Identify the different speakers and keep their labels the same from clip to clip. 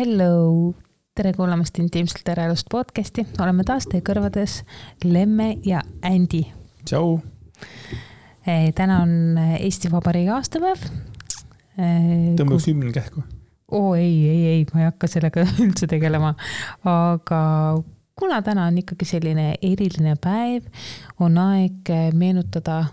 Speaker 1: Hello! Tere kuulamast Intiimselt eraelust podcasti. Oleme taas teie kõrvades Lemme ja Andy.
Speaker 2: Tšau!
Speaker 1: Täna on Eesti Vabariigi aastapäev.
Speaker 2: Tõmbaks hümn kähku.
Speaker 1: Ei, ma ei hakka sellega üldse tegelema. Aga kuna täna on ikkagi selline eriline päev, on aeg meenutada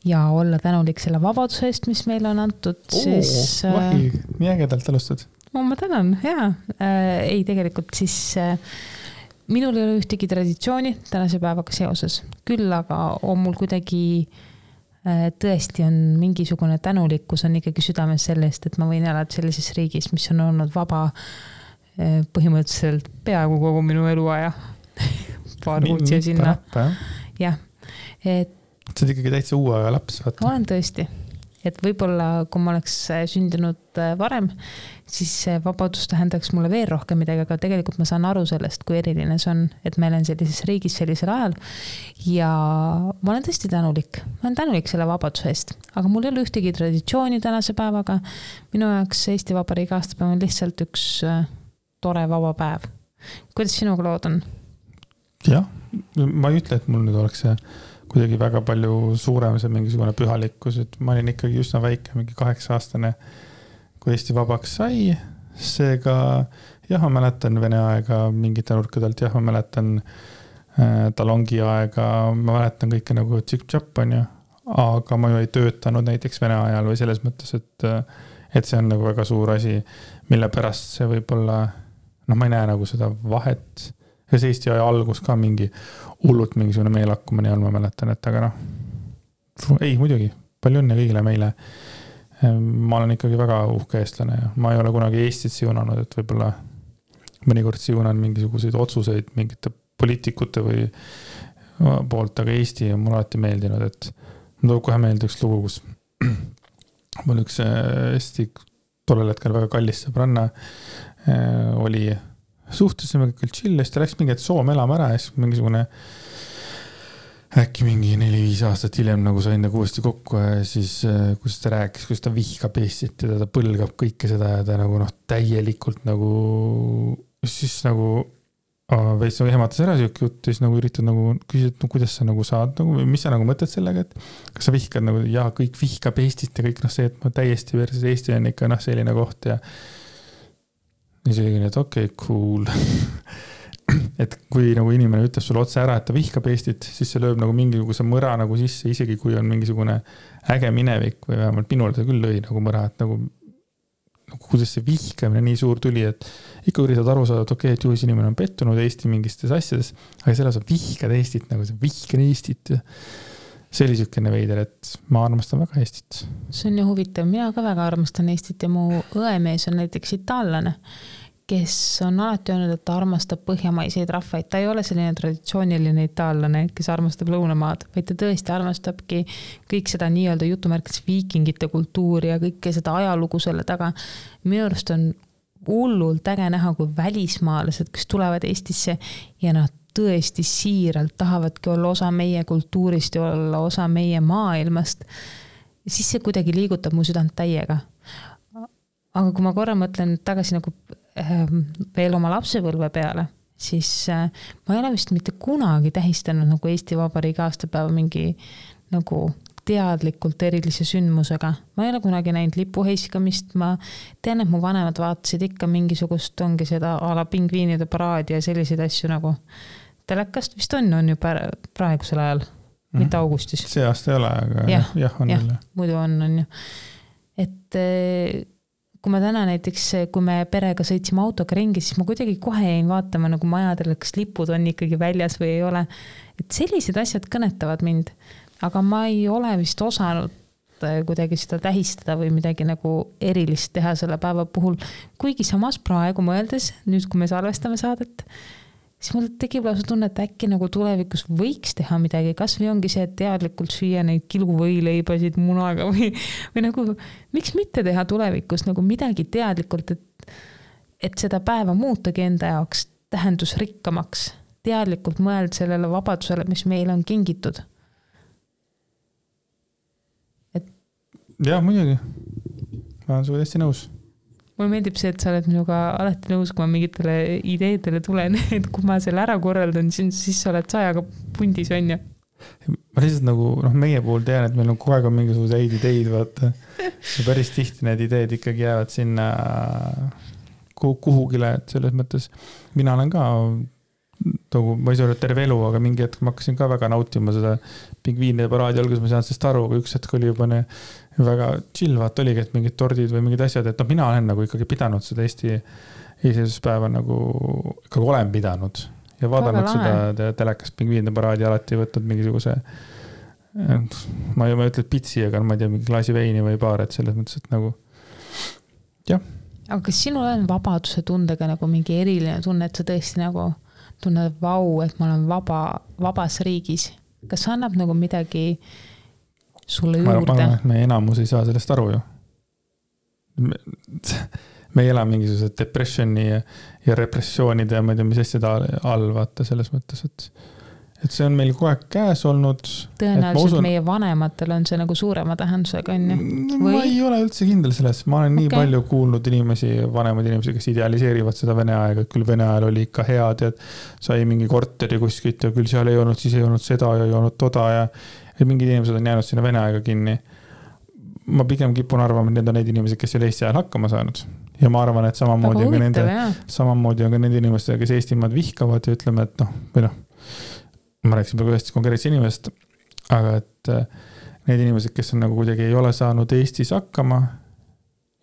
Speaker 1: ja olla tänulik selle vabaduse eest, mis meile on antud.
Speaker 2: Vahi, nii ägedalt alustad.
Speaker 1: Ma tänan, jaa. Ei, tegelikult siis minul ei ole ühtegi traditsiooni tänase päevaga seoses. Küll aga on mul kuidagi tõesti on mingisugune tänulikkus on ikkagi südames sellest, et ma võin elada sellises riigis, mis on olnud vaba põhimõtteliselt peaaegu kogu minu eluaja. Paar kuutsi sinna. Jah.
Speaker 2: Sa oled ikkagi täitsa uue aja laps, vaata.
Speaker 1: Olen tõesti. Et võib-olla, kui ma oleks sündinud varem, siis vabadus tähendaks mulle veel rohkem midagi, aga tegelikult ma saan aru sellest, kui eriline see on, et meil on sellises riigis sellisel ajal. Ja ma olen tõesti tänulik. Ma olen tänulik selle vabaduse eest, aga mul ei ole ühtegi traditsiooni tänase päevaga. Minu jaoks Eesti Vabariigi aastapäev on lihtsalt üks tore vaba päev. Kuidas sinuga lood on?
Speaker 2: Jah, ma ei ütle, et mul nüüd oleks see kuidagi väga palju suurem see mingisugune pühalikkus, et ma olin ikkagi üsna väike, mingi 8-aastane, kui Eesti vabaks sai. Seega, jah, ma mäletan Vene aega mingite nurkadelt, jah, ma mäletan talongi aega, ma mäletan kõike nagu tšik-tšap on ju, aga ma ju ei töötanud näiteks Vene ajal või selles mõttes, et see on nagu väga suur asi, mille pärast see võib-olla, ma ei näe nagu seda vahet. Ja see Eesti aja algus ka mingi hullult mingisugune meelakkumine on, ma mäletan, et aga ei muidugi, palju õnne kõigile meile. Ma olen ikkagi väga uhke eestlane ja ma ei ole kunagi Eestit siunanud, et võib-olla mõnikord siunan mingisuguseid otsuseid mingite poliitikute või poolt, aga Eesti on mul alati meeldinud, et ma tuleb kohe meelde üks lugu, kus mul üks Eesti tollel hetkel väga kallis sõbranna oli suhtusime küll chill, siis ta läks mingi Soome elama ära ja siis mingisugune äkki mingi 4-5 aastat hiljem nagu sain nagu uuesti kokku ja siis kus ta rääkis, kus ta vihkab Eestit ja ta põlgab kõike seda ja ta nagu täielikult nagu siis nagu veits nagu ehmatas ära siuke jutt ja siis nagu üritad nagu küsida, et kuidas sa nagu saad nagu, mis sa nagu mõtled sellega, et kas sa vihkad nagu ja kõik vihkab Eestit ja kõik see, et ma täiesti versus Eesti on ikka selline koht ja nii see oli, et okei, cool. Et kui nagu inimene ütleb sulle otse ära, et ta vihkab Eestit, siis see lööb nagu mingisuguse mõra nagu sisse, isegi kui on mingisugune äge minevik või vähemalt minul ta küll lõi nagu mõra, et nagu kuidas see vihkamine nii suur tuli, et ikka üritad aru saada, et okei, et juhis inimene on pettunud Eesti mingistes asjades, aga selle sa vihkad Eestit, nagu see vihkan Eestit ja see oli sükene veider, et ma armastan väga Eestit.
Speaker 1: See on ju huvitav, mina ka väga armastan Eestit ja mu õemees on näiteks itaallane, kes on alati öelnud, et ta armastab põhjamaiseid rahvaid. Ta ei ole selline traditsiooniline itaallane, kes armastab lõunamaad, vaid ta tõesti armastabki kõik seda nii-öelda jutumärkides viikingite kultuuri ja kõike seda ajalugu selle taga. Minu arust on hullult äge näha, kui välismaalased, kes tulevad Eestisse ja nad tõesti siiralt tahavadki olla osa meie kultuurist ja olla osa meie maailmast. Ja siis see kuidagi liigutab mu südant täiega. Aga kui ma korra mõtlen tagasi nagu veel oma lapsepõlve peale, siis ma ei ole vist mitte kunagi tähistanud nagu Eesti Vabariigi aastapäeva mingi nagu teadlikult erilise sündmusega. Ma ei ole kunagi näinud lipuheiskamist, ma tean, et mu vanemad vaatasid ikka mingisugust ongi seda ala pingviinide paraadi ja selliseid asju nagu telekast vist on ju praegusel ajal, mitte augustis.
Speaker 2: See aasta ei ole, aga jah on jälle.
Speaker 1: Muidu on ju. Et kui ma täna näiteks, kui me perega sõitsime autoga ringi, siis ma kuidagi kohe jäin vaatama nagu majadele, kas lipud on ikkagi väljas või ei ole. Et sellised asjad kõnetavad mind, aga ma ei ole vist osanud kuidagi seda tähistada või midagi nagu erilist teha selle päeva puhul. Kuigi samas praegu mõeldes, nüüd kui me salvestame saadet, siis mul tekib lausa tunne, et äkki nagu tulevikus võiks teha midagi, kas või ongi see, et teadlikult süüa neid kiluvõileibasid munaga või nagu, miks mitte teha tulevikus nagu midagi teadlikult, et seda päeva muutagi enda jaoks tähendusrikkamaks, teadlikult mõeld sellele vabadusele, mis meil on kingitud.
Speaker 2: Jah, muidugi. Ma olen sulle hästi nõus.
Speaker 1: mulle meeldib see, et sa oled minuga alati nõus, kui ma mingitele ideedele tulen, et kui ma selle ära korraldan, siis sa oled sajaga pundis, on ju.
Speaker 2: Ma lihtsalt nagu, meie puhul tean, et meil on kogu aeg on mingisuguse häid ideid, vaata. Ja päris tihti need ideed ikkagi jäävad sinna kuhugile, et selles mõttes mina olen ka ma ei saa öelda terve elu, aga mingi hetk ma hakkasin ka väga nautima seda pingviinide paraadi alguses, ma saan sellest aru, aga üks hetk oli juba väga chill, vaat oligi, et mingid tordid või mingid asjad, et mina olen nagu ikkagi pidanud seda Eesti iseseisvuspäeva nagu ikkagi olen pidanud ja vaadanud seda telekast pingviinide paraadi alati võtnud mingisuguse ma ei ütle pitsi, aga ma ei tea, mingi klaasi veini või paar, et selles mõttes, et nagu jah.
Speaker 1: Aga kas sinul on vabaduse tundega nagu mingi eriline tunne, et sa tõesti nagu tunned vau, et ma olen vabas riigis. Kas annab nagu midagi sulle juurde?
Speaker 2: Ma arvan, et me enamus ei saa sellest aru ju. Me ei ela mingisugused depressioni ja repressioonide ja ma ei tea, mis asjad all vaata selles mõttes, et see on meil kogu aeg käes olnud.
Speaker 1: Tõenäoliselt meie vanematel on see nagu suurema tähendusega, on ju?
Speaker 2: Ma ei ole üldse kindel selles. Ma olen nii palju kuulnud vanemaid inimesi, kes idealiseerivad seda Vene aega, et küll Vene ajal oli ikka head, et sai mingi korteri kuskilt ja küll seal ei olnud, siis ei olnud seda ja ei olnud toda ja mingid inimesed on jäänud sinna Vene aega kinni. Ma pigem kipun arvama, et need on need inimesed, kes ei ole Eesti ajal hakkama saanud. Ja ma arvan, et samamoodi on ka nende inimestega, kes Eestimaad vihkavad ja ütleme, et või ma rääksin praegu ühest konkreetse inimest, aga et need inimesed, kes on nagu kuidagi ei ole saanud Eestis hakkama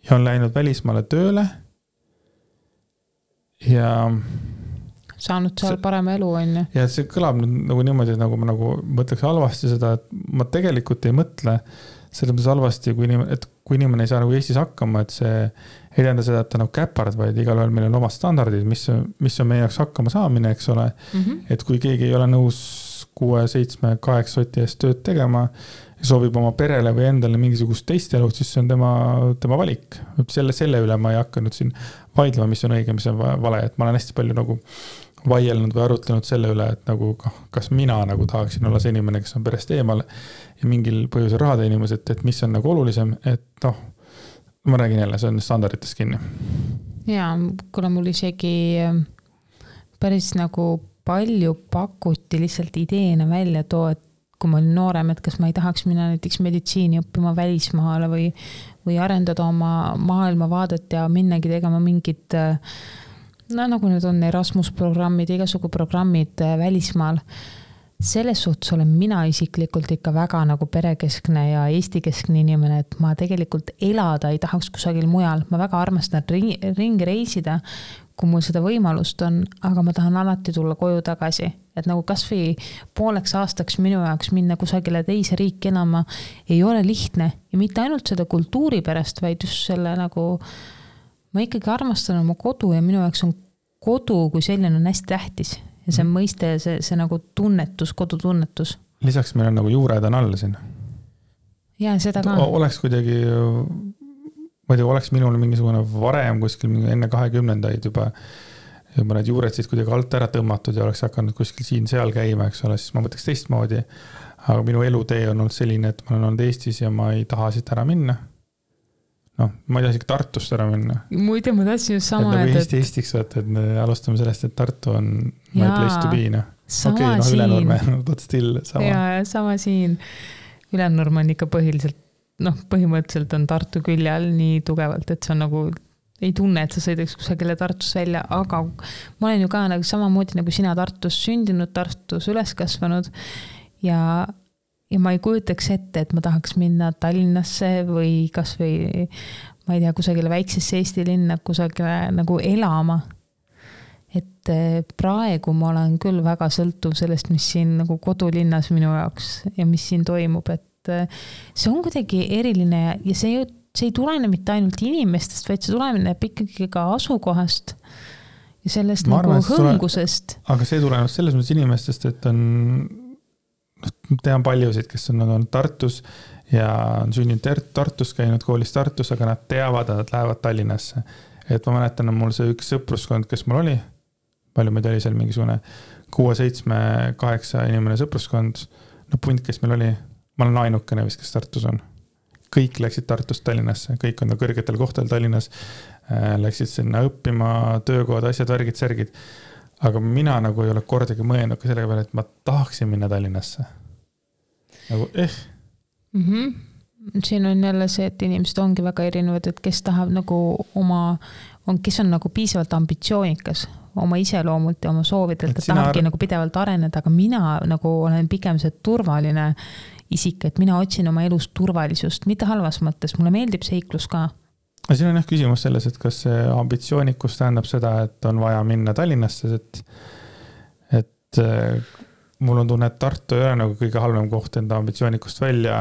Speaker 2: ja on läinud välismaale tööle ja
Speaker 1: saanud seal parema elu, on ju.
Speaker 2: Ja see kõlab nagu niimoodi, et nagu ma mõtleks halvasti seda, et ma tegelikult ei mõtle selles mõttes halvasti, kui inimene ei saa nagu Eestis hakkama, et see ei tähenda seda, et ta nagu käpard, vaid igal ühel meil on omad standardid, mis on meie jaoks hakkama saamine, eks ole. Et kui keegi ei ole nõus 6, 7, 8 soti eest tööd tegema ja soovib oma perele või endale mingisugust teist elu, siis see on tema valik. Selle üle ma ei hakanud siin vaidlema, mis on õige, mis on vale. Et ma olen hästi palju nagu vaielnud või arutlenud selle üle, et nagu kas mina nagu tahaksin olla see inimene, kes on perest eemal ja mingil põhjusel rahade inimesed, et mis on nagu olulisem, et ma räägin jälle, see on standarditest kinni.
Speaker 1: Ja, kuna mul isegi päris nagu palju pakuti lihtsalt ideena välja too, et kui ma olin noorem, et kas ma ei tahaks minna näiteks meditsiini õppima välismaale või arendada oma maailmavaadet ja minnagi tegema mingid nagu need on Erasmus programmid, igasugu programmid välismaal. Selles suhtes olen mina isiklikult ikka väga nagu perekeskne ja Eesti-keskne inimene, et ma tegelikult elada ei tahaks kusagil mujal. Ma väga armastan ringi reisida, kui mul seda võimalust on, aga ma tahan alati tulla koju tagasi. Et nagu kas või pooleks aastaks minu jaoks minna kusagile teise riiki enama ei ole lihtne. Ja mitte ainult seda kultuuri pärast, vaid just selle nagu ma ikkagi armastan oma kodu ja minu jaoks on kodu kui selline on hästi tähtis. Ja see mõiste, see nagu tunnetus, kodutunnetus. Lisaks meil on nagu juured on all siin. Ja seda ka. Oleks kuidagi, ma ei tea, oleks minul mingisugune varem kuskil enne 20-ndaid juba need juured siis kuidagi alt ära tõmmatud ja oleks hakanud kuskil siin-seal käima, eks ole, siis ma mõtleks teistmoodi. Aga minu elutee on olnud selline, et ma olen olnud Eestis ja ma ei taha siit ära minna. Ma ei taha isegi Tartust ära minna. Muide, ma tahtsin just sama, et Eesti Eestiks vaata, et me alustame sellest, et Tartu on my place to be. Sama siin. Ülenurme, but still sama. Ja, sama siin. Ülenurme on ikka põhimõtteliselt on Tartu külje all nii tugevalt, et see on nagu ei tunne, et sa sõidaks kusagile Tartus välja, aga ma olen ju ka nagu samamoodi nagu sina Tartus sündinud, Tartus üles kasvanud ja ma ei kujutaks ette, et ma tahaks minna Tallinnasse või kas või, ma ei tea, kusagile väiksesse Eesti linna, kusagile nagu elama. Et praegu ma olen küll väga sõltuv sellest, mis siin nagu kodulinnas minu jaoks ja mis siin toimub, et see on kuidagi eriline ja see ei tulene mitte ainult inimestest, vaid see tuleneb ikkagi ka asukohast ja sellest ma nagu hõngusest. Aga see tuleneb selles mõttes inimestest, et on tean paljusid, kes on Tartus ja on sünninud Tartus, käinud koolis Tartus, aga nad teavad, et nad lähevad Tallinnasse. Et ma mäletan, mul see üks sõpruskond, kes mul oli, palju meid oli seal mingisugune 6, 7, 8 inimene sõpruskond, punt, kes meil oli, ma olen ainukene vist, kes Tartus on.
Speaker 2: kõik läksid Tartust Tallinnasse, kõik on kõrgetel kohtadel Tallinnas, läksid sinna õppima, töökohad, asjad, värgid, särgid. Aga mina nagu ei ole kordagi mõelnud ka sellega peale, et ma tahaksin minna Tallinnasse. Nagu
Speaker 1: Siin on jälle see, et inimesed ongi väga erinevad, et kes tahab nagu kes on nagu piisavalt ambitsioonikas oma iseloomult ja oma soovidelt, et tahabki nagu pidevalt areneda, aga mina nagu olen pigem see turvaline isik, et mina otsin oma elus turvalisust, mitte halvas mõttes, mulle meeldib seiklus ka.
Speaker 2: Siin on küsimus selles, et kas see ambitsioonikus tähendab seda, et on vaja minna Tallinnasse, et mul on tunne, et Tartu ei ole nagu kõige halvem koht enda ambitsioonikust välja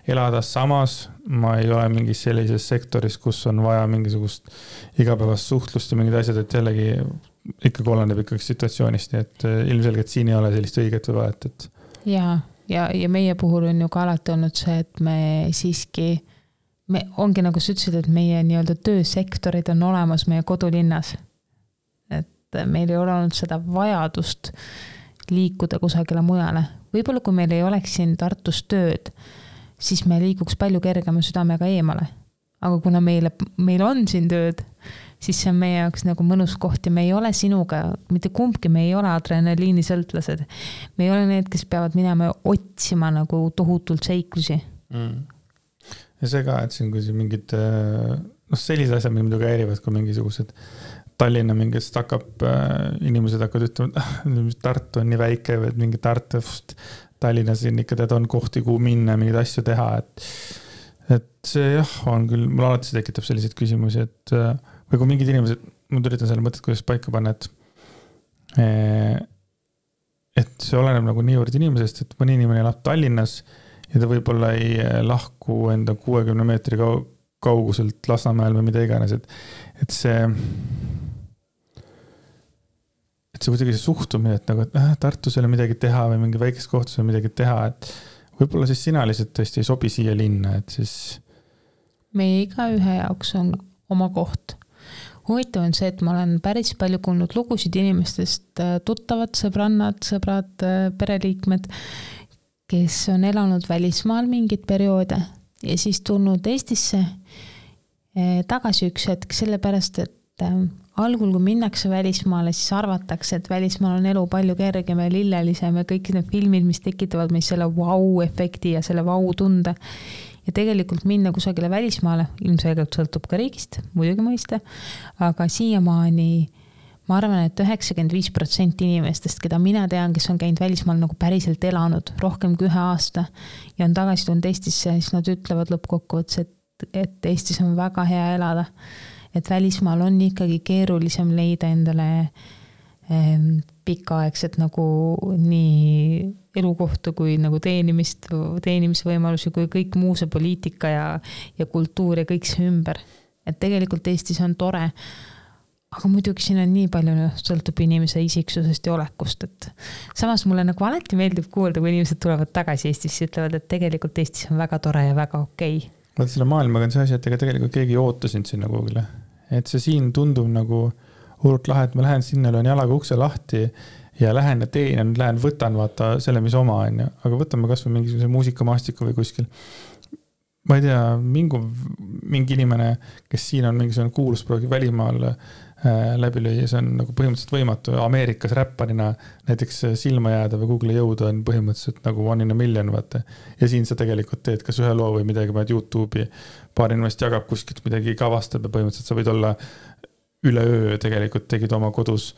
Speaker 2: elada, samas ma ei ole mingis sellises sektoris, kus on vaja mingisugust igapäevast suhtlust ja mingid asjad, et jällegi ikkagi oleneb ikkagi situatsioonist, nii et ilmselgelt siin ei ole sellist õiget või vahet.
Speaker 1: Ja meie puhul on ju ka alati olnud see, et me siiski, ongi nagu sa ütlesid, et meie nii-öelda töösektorid on olemas meie kodulinnas. Et meil ei ole olnud seda vajadust liikuda kusagile mujale. Võib-olla kui meil ei oleks siin Tartus tööd, siis me liiguks palju kergema südamega eemale. Aga kuna meil on siin tööd, siis see on meie jaoks nagu mõnus koht ja me ei ole sinuga, mitte kumbki, me ei ole adrenaliini sõltlased. Me ei ole need, kes peavad minema otsima nagu tohutult seiklusi.
Speaker 2: Ja see ka, et siin kui mingid sellised asjad, mida muidugi häirivad, kui mingisugused Tallinna mingist hakkab, inimesed hakkavad ütlema, et Tartu on nii väike või mingi Tartust Tallinnas ikka tead on kohti, kuhu minna, mingeid asju teha, et see on küll, mul alati see tekitab selliseid küsimusi, et või kui mingid inimesed, ma üritan selle mõtet, kuidas paika panna, et see oleneb nagu niivõrd inimesest, et mõni inimene elab Tallinnas ja ta võib-olla ei lahku enda 60 meetri kauguselt Lasnamäel või mida iganes, et see kuidagi see suhtumine, et nagu, et Tartus ei ole midagi teha või mingi väikest kohtus ei ole midagi teha, et võib-olla siis sina lihtsalt tõesti ei sobi siia linna, et siis
Speaker 1: meie iga ühe jaoks on oma koht. Huvitav on see, et ma olen päris palju kuulnud lugusid inimestest, tuttavad, sõbrad, pereliikmed, kes on elanud välismaal mingid perioode ja siis tulnud Eestisse tagasi üks hetk, sellepärast, et algul, kui minnakse välismaale, siis arvatakse, et välismaal on elu palju kergem ja lillelisem ja kõik need filmid, mis tekitavad meis selle vau-efekti ja selle vau-tunde. Ja tegelikult minna kusagile välismaale, ilmselgelt sõltub ka riigist, muidugi mõista, aga siiamaani ma arvan, et 95% inimestest, keda mina tean, kes on käinud välismaal nagu päriselt elanud rohkem kui 1 aasta ja on tagasi tulnud Eestisse, siis nad ütlevad lõppkokkuvõttes, et Eestis on väga hea elada. Et välismaal on ikkagi keerulisem leida endale pikaaegset nagu nii elukohta kui nagu teenimisvõimalusi kui kõik muu see poliitika ja kultuur ja kõik see ümber. Et tegelikult Eestis on tore, aga muidugi siin on nii palju sõltub inimese isiksusest ja olekust, et samas mulle nagu alati meeldib kuulda, kui inimesed tulevad tagasi Eestisse, ütlevad, et tegelikult Eestis on väga tore ja väga okei.
Speaker 2: Vaat selle maailmaga on see asi, et ega tegelikult keegi ei oota sind sinna kuhugile. Et see siin tundub nagu hullult lahe, et ma lähen sinna, löön jalaga ukse lahti ja lähen ja teen ja nüüd lähen võtan vaata selle, mis oma on. Aga võtame kas või mingisuguse muusikamaastiku või kuskil. Ma ei tea, mingi inimene, kes siin on mingisugune kuulus proogi välimaal läbi lüüa, see on nagu põhimõtteliselt võimatu. Ameerikas räpparina näiteks silma jääda või Google'i jõuda on põhimõtteliselt nagu 1 in a million, vaata. Ja siin sa tegelikult teed kas ühe loo või midagi, paned YouTube'i, paar inimest jagab kuskilt midagi kavastab ja põhimõtteliselt sa võid olla üleöö tegelikult tegid oma kodus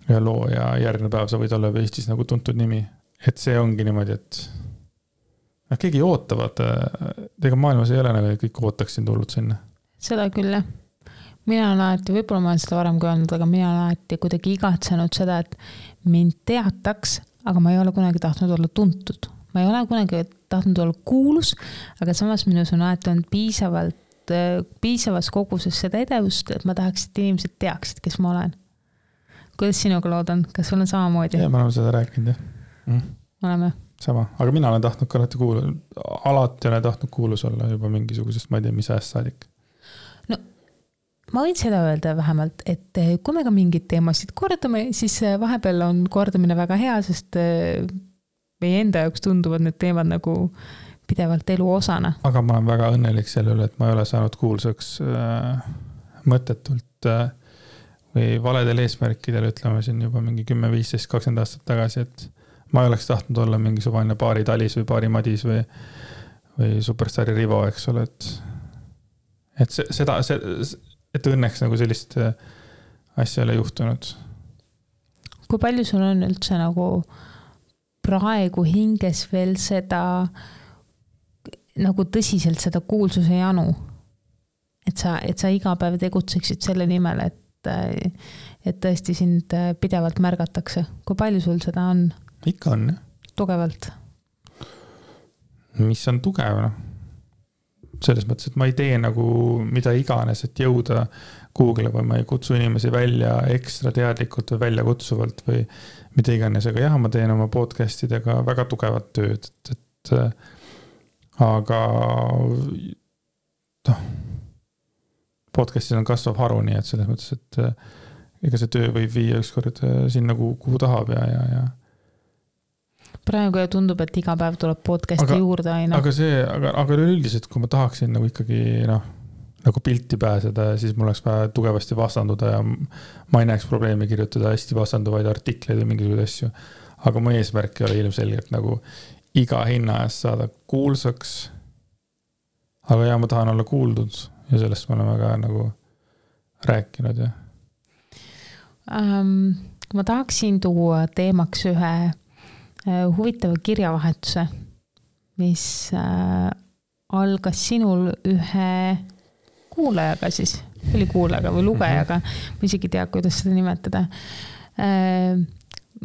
Speaker 2: ühe loo ja järgmine päev sa võid olla Eestis nagu tuntud nimi. Et see ongi niimoodi, et keegi ei oota, vaata. Tega maailmas ei ole nagu kõik ootaksin tulnud sinna.
Speaker 1: Seda küll, jah. Mina olen alati, võib-olla ma olen seda varem kui öelnud, aga mina olen alati kuidagi igatsenud seda, et mind teataks, aga ma ei ole kunagi tahtnud olla tuntud. Ma ei ole kunagi tahtnud olla kuulus, aga samas minus on alati olnud piisavas koguses seda edevust, et ma tahaks, et inimesed teaksid, kes ma olen. Kuidas sinuga loodan? Kas sul on samamoodi?
Speaker 2: Ja, ma olen seda rääkinud, jah.
Speaker 1: Oleme.
Speaker 2: Sama, aga mina olen tahtnud ka alati olen tahtnud kuulus olla juba mingisugusest, ma ei tea, mis ajast saadik.
Speaker 1: No, ma võin seda öelda vähemalt, et kui me ka mingid teemasid kordame, siis vahepeal on kordamine väga hea, sest meie enda jaoks tunduvad need teemad nagu pidevalt elu osana.
Speaker 2: aga ma olen väga õnnelik selle üle, et ma ei ole saanud kuulsaks mõttetult või valedel eesmärkidel, ütleme siin juba mingi 10, 15, 20 aastat tagasi, et ma ei oleks tahtnud olla mingisugune Baari Talis või Baari Madis või Superstaari Rivo, eks ole, et et õnneks nagu sellist asja ei ole juhtunud.
Speaker 1: Kui palju sul on üldse nagu praegu hinges veel seda nagu tõsiselt seda kuulsuse janu, et sa iga päev tegutseksid selle nimel, et tõesti sind pidevalt märgatakse. Kui palju sul seda on?
Speaker 2: Ikka on, jah.
Speaker 1: Tugevalt?
Speaker 2: Mis on tugev, noh? Selles mõttes, et ma ei tee nagu mida iganes, et jõuda Google või ma ei kutsu inimesi välja ekstra teadlikult või välja kutsuvalt või mida iganes, aga jah, ma teen oma podcastidega väga tugevat tööd, et aga podcastis on kasvav haru, nii et selles mõttes, et ega see töö võib viia ükskord sinna, kuhu tahab ja
Speaker 1: praegu ja tundub, et iga päev tuleb podcasti juurde aina.
Speaker 2: Aga üldiselt, kui ma tahaksin nagu ikkagi nagu pilti pääseda, siis mul oleks vaja tugevasti vastanduda ja ma ei näeks probleemi kirjutada hästi vastanduvaid artikleid või mingisuguseid asju. Aga mu eesmärk ei ole ilmselgelt nagu iga hinna eest saada kuulsaks. Aga ja ma tahan olla kuuldud ja sellest me oleme ka nagu rääkinud. Ja.
Speaker 1: Ma tahaksin tuua teemaks ühe huvitava kirjavahetuse, mis algas sinul ühe kuulajaga siis, oli kuulajaga või lugejaga, ma isegi tea, kuidas seda nimetada.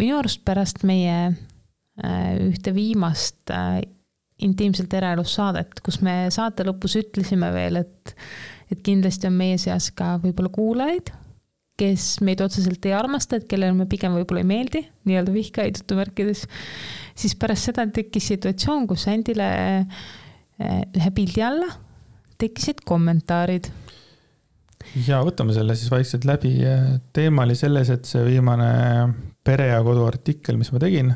Speaker 1: Minu arust pärast meie ühte viimast intiimselt eraelus saadet, kus me saate lõpus ütlesime veel, et kindlasti on meie seas ka võib-olla kuulajaid, kes meid otseselt ei armasta, et kellel me pigem võib-olla ei meeldi, nii-öelda vihkaid jutumärkides, siis pärast seda tekkis situatsioon, kus Andile ühe pildi alla tekkisid kommentaarid.
Speaker 2: Ja võtame selle siis vaikselt läbi. Teema oli selles, et see viimane Pere ja Kodu artikkel, mis ma tegin,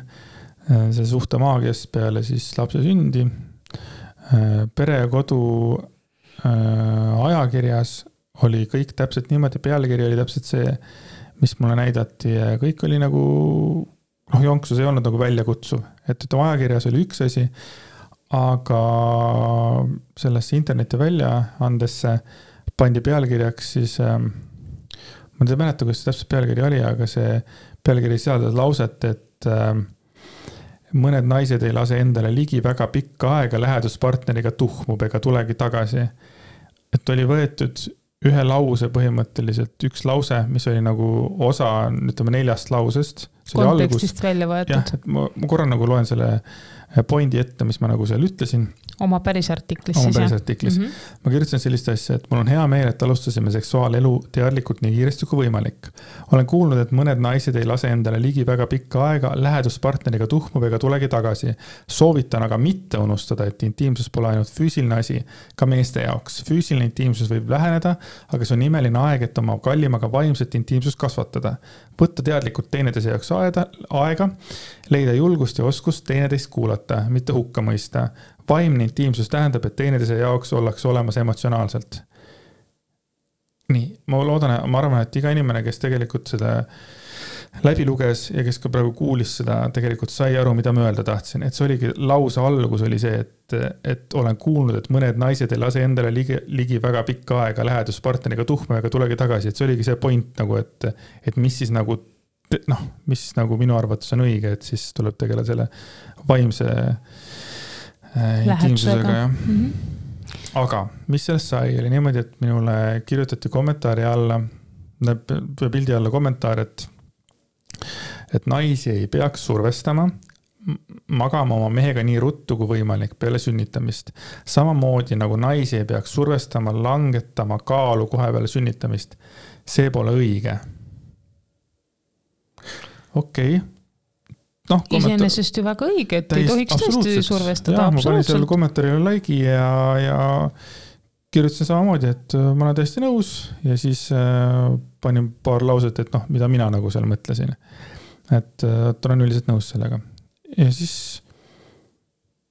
Speaker 2: see suhte maagiast peale siis lapse sündi. Pere ja Kodu ajakirjas oli kõik täpselt niimoodi, pealkiri oli täpselt see, mis mulle näidati ja kõik oli nagu, jonksus ei olnud nagu väljakutsuv, et ajakirjas oli üks asi, aga sellesse interneti väljaandesse pandi pealkirjaks siis, ma ei mäleta, kuidas see täpselt pealkiri oli, aga see pealkiri sisaldas lauset, et mõned naised ei lase endale ligi väga pikka aega läheduspartneriga tuhmub ega tulegi tagasi. Et oli võetud ühe lause põhimõtteliselt, üks lause, mis oli nagu osa, ütleme 4 lausest.
Speaker 1: Kontekstist välja võetud.
Speaker 2: Jah, et ma korra nagu loen selle pointi ette, mis ma nagu seal ütlesin.
Speaker 1: Oma päris artiklis.
Speaker 2: Ma kirjutasin sellist asja, et mul on hea meel, et alustasime seksuaalelu teadlikult nii kiiresti kui võimalik. Olen kuulnud, et mõned naised ei lase endale ligi väga pikka aega, läheduspartneriga tuhmub ega tulegi tagasi. Soovitan aga mitte unustada, et intiimsus pole ainult füüsiline asi, ka meeste jaoks. Füüsiline intiimsus võib läheneda, aga see on imeline aeg, et oma kallimaga vaimset intiimsust kasvatada. Võtta teadlikult teineteise jaoks aega, leida julgust ja oskust teineteist kuulata, mitte hukka mõista. Vaimne intiimsus tähendab, et teineteise jaoks ollakse olemas emotsionaalselt. Nii, ma arvan, et iga inimene, kes tegelikult seda läbi luges ja kes ka praegu kuulis seda, tegelikult sai aru, mida ma öelda tahtsin. Et see oligi lause algus oli see, et olen kuulnud, et mõned naised ei lase endale ligi väga pikka aega läheduspartneriga tuhma ega tulegi tagasi. Et see oligi see point, nagu, et mis siis nagu, mis siis nagu minu arvates on õige, et siis tuleb tegeleda selle vaimse intiimsusega. Ja. Aga mis sellest sai, oli niimoodi, et minule kirjutati kommentaari alla, pildi alla kommentaar, et naisi ei peaks survestama, magama oma mehega nii ruttu kui võimalik peale sünnitamist. Samamoodi nagu naisi ei peaks survestama, langetama kaalu kohe peale sünnitamist. See pole õige. Okei.
Speaker 1: Iseenesest ju väga õige, et ei tohiks tõesti survestada.
Speaker 2: Ma panin selle kommentaarile laigi ja kirjutasin samamoodi, et ma olen täiesti nõus ja siis panin paar lauset, et mida mina nagu seal mõtlesin. Et olen üldiselt nõus sellega. Ja siis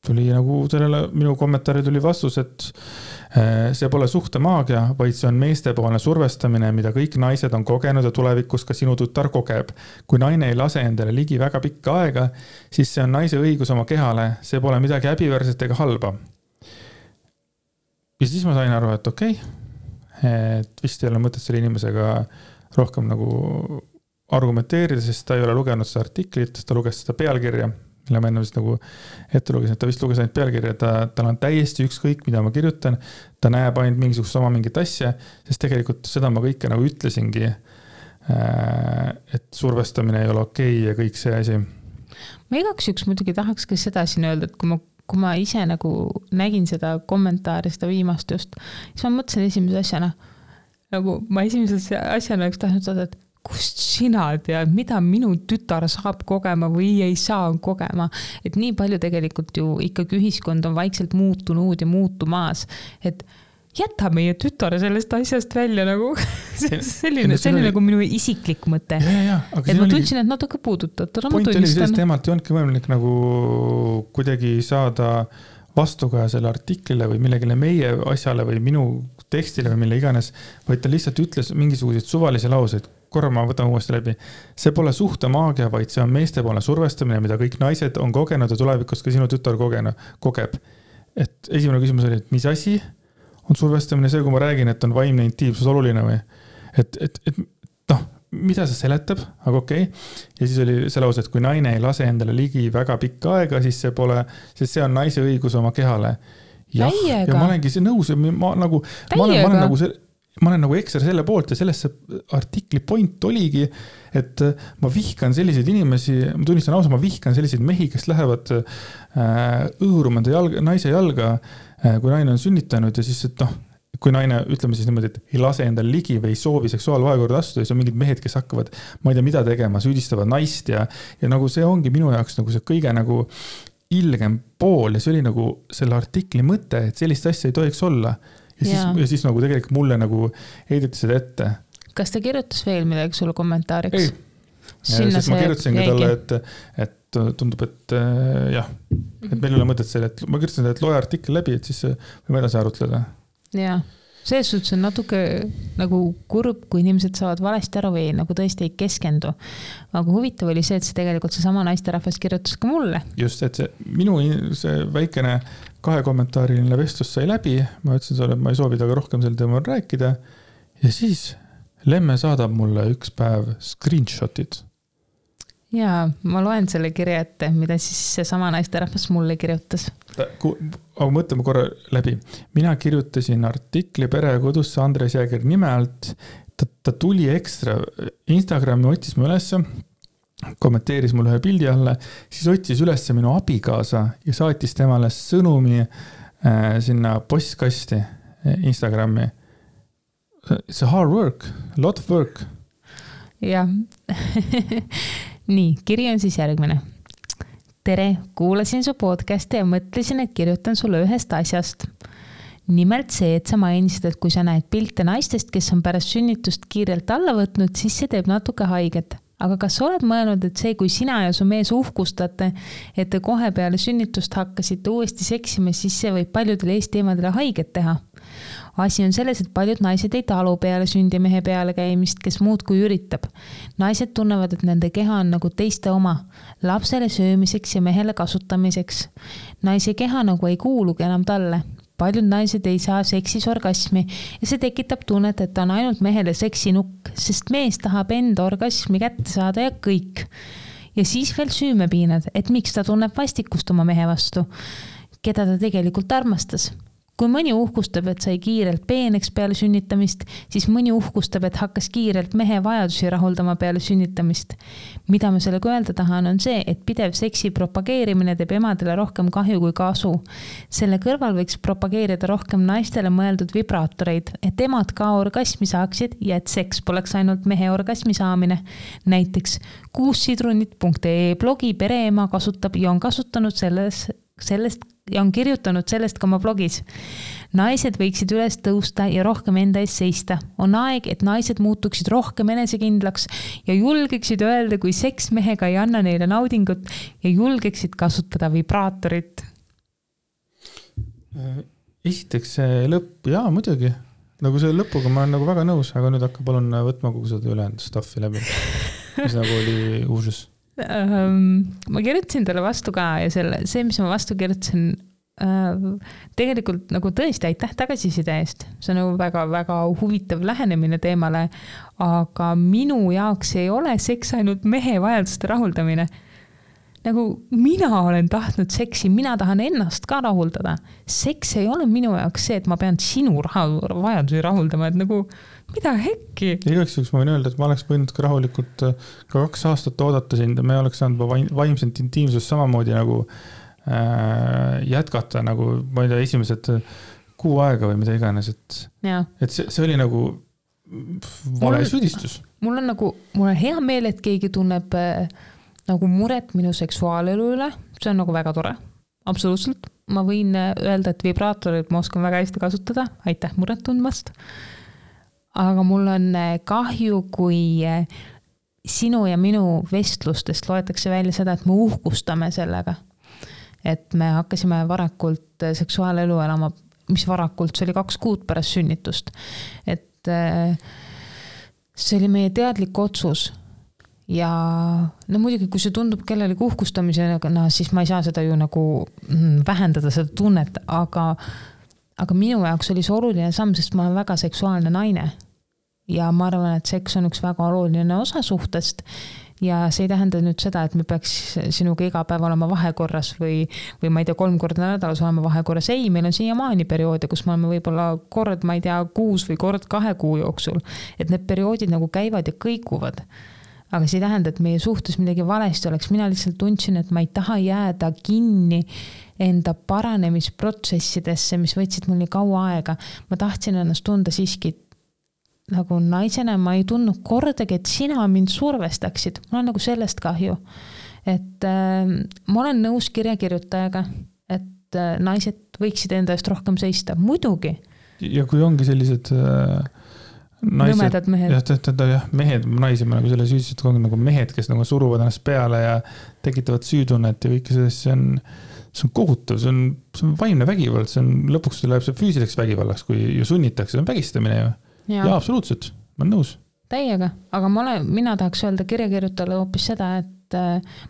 Speaker 2: tuli nagu sellele minu kommentaari tuli vastus, et see pole suhtemaagia, vaid see on meestepoolne survestamine, mida kõik naised on kogenud ja tulevikus ka sinu tütar kogeb. Kui naine ei lase endale ligi väga pikka aega, siis see on naise õigus oma kehale, see pole midagi häbiväärset ega halba. Ja siis ma sain aru, et okei, et vist ei ole mõtet selle inimesega rohkem nagu argumenteerida, sest ta ei ole lugenud seda artiklit, ta luges seda pealkirja, mille ma enne vist nagu ette lugesin, et ta vist luges ainult pealkirja, tal on täiesti ükskõik, mida ma kirjutan, ta näeb ainult mingisugust sama mingit asja, sest tegelikult seda ma kõike nagu ütlesingi, et survestamine ei ole okei ja kõik see asi.
Speaker 1: Ma igaks juks muidugi tahaks ka seda siin öelda, et kui ma ise nagu nägin seda kommentaari, seda viimast just, siis ma mõtlesin esimese asjana, nagu ma esimese asjana oleks tahtnud saada, et kust sina tead, mida minu tütar saab kogema või ei saa kogema. Et nii palju tegelikult ju ikkagi ühiskond on vaikselt muutunud ja muutumaas, et jäta meie tütar sellest asjast välja nagu selline nagu minu isiklik mõte. Et ma tundsin, et natuke puudutatud.
Speaker 2: Point oli sellest teemalt ei olnudki võimalik nagu kuidagi saada vastuga selle artiklile või millegile meie asjale või minu tekstile või mille iganes, vaid ta lihtsalt ütles mingisuguseid suvalisi lauseid. Korra ma võtan uuesti läbi. See pole suhtemaagia, vaid see on meestepoolne survestamine, mida kõik naised on kogenud ja tulevikus ka sinu tütar kogeb. Et esimene küsimus oli, et mis asi on survestamine, see, kui ma räägin, et on vaimne intiimsus oluline või? Et noh, mida see seletab, aga okei. Ja siis oli see lause, et kui naine ei lase endale ligi väga pikka aega, siis see on naise õigus oma kehale. Ja ma olengi see nõus ja ma olen nagu ekstra selle poolt ja sellesse artikli point oligi, et ma vihkan selliseid inimesi, ma tunnistan ausa, ma vihkan selliseid mehi, kes lähevad õõruma naise jalga, kui naine on sünnitanud ja siis, et kui naine, ütleme siis niimoodi, et ei lase endale ligi või ei soovi seksuaalvahekorda astuda, siis on mingid mehed, kes hakkavad, ma ei tea, mida tegema, süüdistavad naist ja nagu see ongi minu jaoks nagu see kõige nagu ilgem pool ja see oli nagu selle artikli mõte, et sellist asja ei tohiks olla. Ja siis nagu tegelikult mulle nagu heideti seda ette.
Speaker 1: Kas ta kirjutas veel midagi sulle kommentaariks?
Speaker 2: Ei. Sest ma kirjutasin ka talle, et tundub, et jah, et meil ei ole mõtet selle, et ma kirjutasin, et loe artikkel läbi, et siis võime edasi arutleda.
Speaker 1: Jaa. Selles suhtes on natuke nagu kurb, kui inimesed saavad valesti aru või nagu tõesti ei keskendu. Aga huvitav oli see, et see tegelikult see sama naisterahvas kirjutas ka mulle.
Speaker 2: Just, et see väikene 2 kommentaariline vestlus sai läbi. Ma ütlesin sulle, et ma ei soovi taga rohkem sel teemal rääkida. Ja siis Lemme saadab mulle üks päev screenshotit.
Speaker 1: Jaa, ma loen selle kirja ette, mida siis see sama naisterahvas mulle kirjutas.
Speaker 2: Aga mõtleme korra läbi. Mina kirjutasin artikli Pere ja kodusse Andres Jääger nime alt. Ta tuli ekstra Instagrami, otsis mu ülesse, kommenteeris mulle ühe pildi alla, siis otsis ülesse minu abikaasa ja saatis temale sõnumi sinna postkasti Instagrami. It's a hard work, a lot of work.
Speaker 1: Jah. Nii, kiri on siis järgmine. Tere, kuulasin su podcasti ja mõtlesin, et kirjutan sulle ühest asjast. Nimelt see, et sa mainisid, et kui sa näed pilte naistest, kes on pärast sünnitust kiirelt alla võtnud, siis see teeb natuke haiget. Aga kas oled mõelnud, et see, kui sina ja su mees uhkustate, et te kohe peale sünnitust hakkasite uuesti seksima, siis see võib paljudele eesteemadele haiget teha? Asi on selles, et paljud naised ei talu peale sündimehe peale käimist, kes muud kui üritab. Naised tunnevad, et nende keha on nagu teiste oma, lapsele söömiseks ja mehele kasutamiseks. Naise keha nagu ei kuulugi enam talle. Paljud naised ei saa seksis orgasmi ja see tekitab tunnet, et ta on ainult mehele seksinukk, sest mees tahab enda orgasmi kätte saada ja kõik. Ja siis veel süümepiinad, et miks ta tunneb vastikust oma mehe vastu, keda ta tegelikult armastas. Kui mõni uhkustab, et sai kiirelt peeneks peale sünnitamist, siis mõni uhkustab, et hakkas kiirelt mehe vajadusi rahuldama peale sünnitamist. Mida ma sellega öelda tahan, on see, et pidev seksi propageerimine teeb emadele rohkem kahju kui kasu. Selle kõrval võiks propageerida rohkem naistele mõeldud vibraatoreid, et emad ka orgasmi saaksid ja et seks poleks ainult mehe orgasmi saamine. Näiteks kuussidrunit.ee blogi pereema kasutab ja on kasutanud sellest ja on kirjutanud sellest ka oma blogis. Naised võiksid üles tõusta ja rohkem enda ees seista. On aeg, et naised muutuksid rohkem enesekindlaks ja julgeksid öelda, kui seks mehega ei anna neile naudingut ja julgeksid kasutada vibraatorit.
Speaker 2: Esiteks see lõpp, jaa muidugi. Nagu see lõpuga ma olen nagu väga nõus, aga nüüd hakka palun võtma kogu seda ülejäänud staffi läbi. Mis nagu oli uusus.
Speaker 1: Ma kirjutasin talle vastu ka ja see, mis ma vastu kirjutasin, tegelikult nagu tõesti aitäh tagasiside eest. See on nagu väga-väga huvitav lähenemine teemale, aga minu jaoks ei ole seks ainult mehe vajaduste rahuldamine. Nagu mina olen tahtnud seksi, mina tahan ennast ka rahuldada. Seks ei ole minu jaoks see, et ma pean sinu vajadusi rahuldama, et nagu mida hekki.
Speaker 2: Igaks juhuks ma võin öelda, et ma oleks võinud ka rahulikult ka 2 aastat oodata sind ja me oleks saanud vaimselt intiimsust samamoodi nagu jätkata, nagu ma ei tea, esimesed 6 aega või mida iganes, et see oli nagu vale süüdistus.
Speaker 1: Mul on hea meel, et keegi tunneb nagu muret minu seksuaalelu üle, see on nagu väga tore, absoluutselt. Ma võin öelda, et vibraatorit ma oskan väga hästi kasutada, aitäh muret tundmast. Aga mul on kahju, kui sinu ja minu vestlustest loetakse välja seda, et me uhkustame sellega. Et me hakkasime varakult seksuaalelu elama, mis varakult, see oli 2 kuud pärast sünnitust. Et see oli meie teadlik otsus. Ja no muidugi, kui see tundub kellelegi uhkustamisena, siis ma ei saa seda ju nagu vähendada seda tunnet, aga minu jaoks oli see oluline samm, sest ma olen väga seksuaalne naine. Ja ma arvan, et seks on üks väga oluline osa suhtest ja see ei tähenda nüüd seda, et me peaks sinuga iga päev olema vahekorras või ma ei tea, 3 korda nädalas olema vahekorras. Ei, meil on siiamaani perioode, kus me oleme võib-olla kord, ma ei tea, 6 või kord 2 kuu jooksul. Et need perioodid nagu käivad ja kõikuvad. Aga see ei tähenda, et meie suhtes midagi valesti oleks. Mina lihtsalt tundsin, et ma ei taha jääda kinni enda paranemisprotsessidesse, mis võtsid mul nii kaua aega. Ma tahtsin ennast tunda siiski nagu naisena, ma ei tundnud kordagi, et sina mind survestaksid. Mul on nagu sellest kahju. Et ma olen nõus kirjakirjutajaga, et naised võiksid enda eest rohkem seista. Muidugi.
Speaker 2: Ja kui ongi sellised
Speaker 1: nõmedad mehed.
Speaker 2: Jah, mehed, naisi ma nagu selle süüdised ongi nagu mehed, kes nagu suruvad ennast peale ja tekitavad süütunnet ja kõike sellest, see on kohutav, see on vaimne vägivald, see on lõpuks läheb see füüsiliseks vägivallaks, kui ju sunnitakse, see on vägistamine ju. Ja absoluutselt, ma olen nõus.
Speaker 1: Täiega, aga mina tahaks öelda kirjakirjutajale hoopis seda, et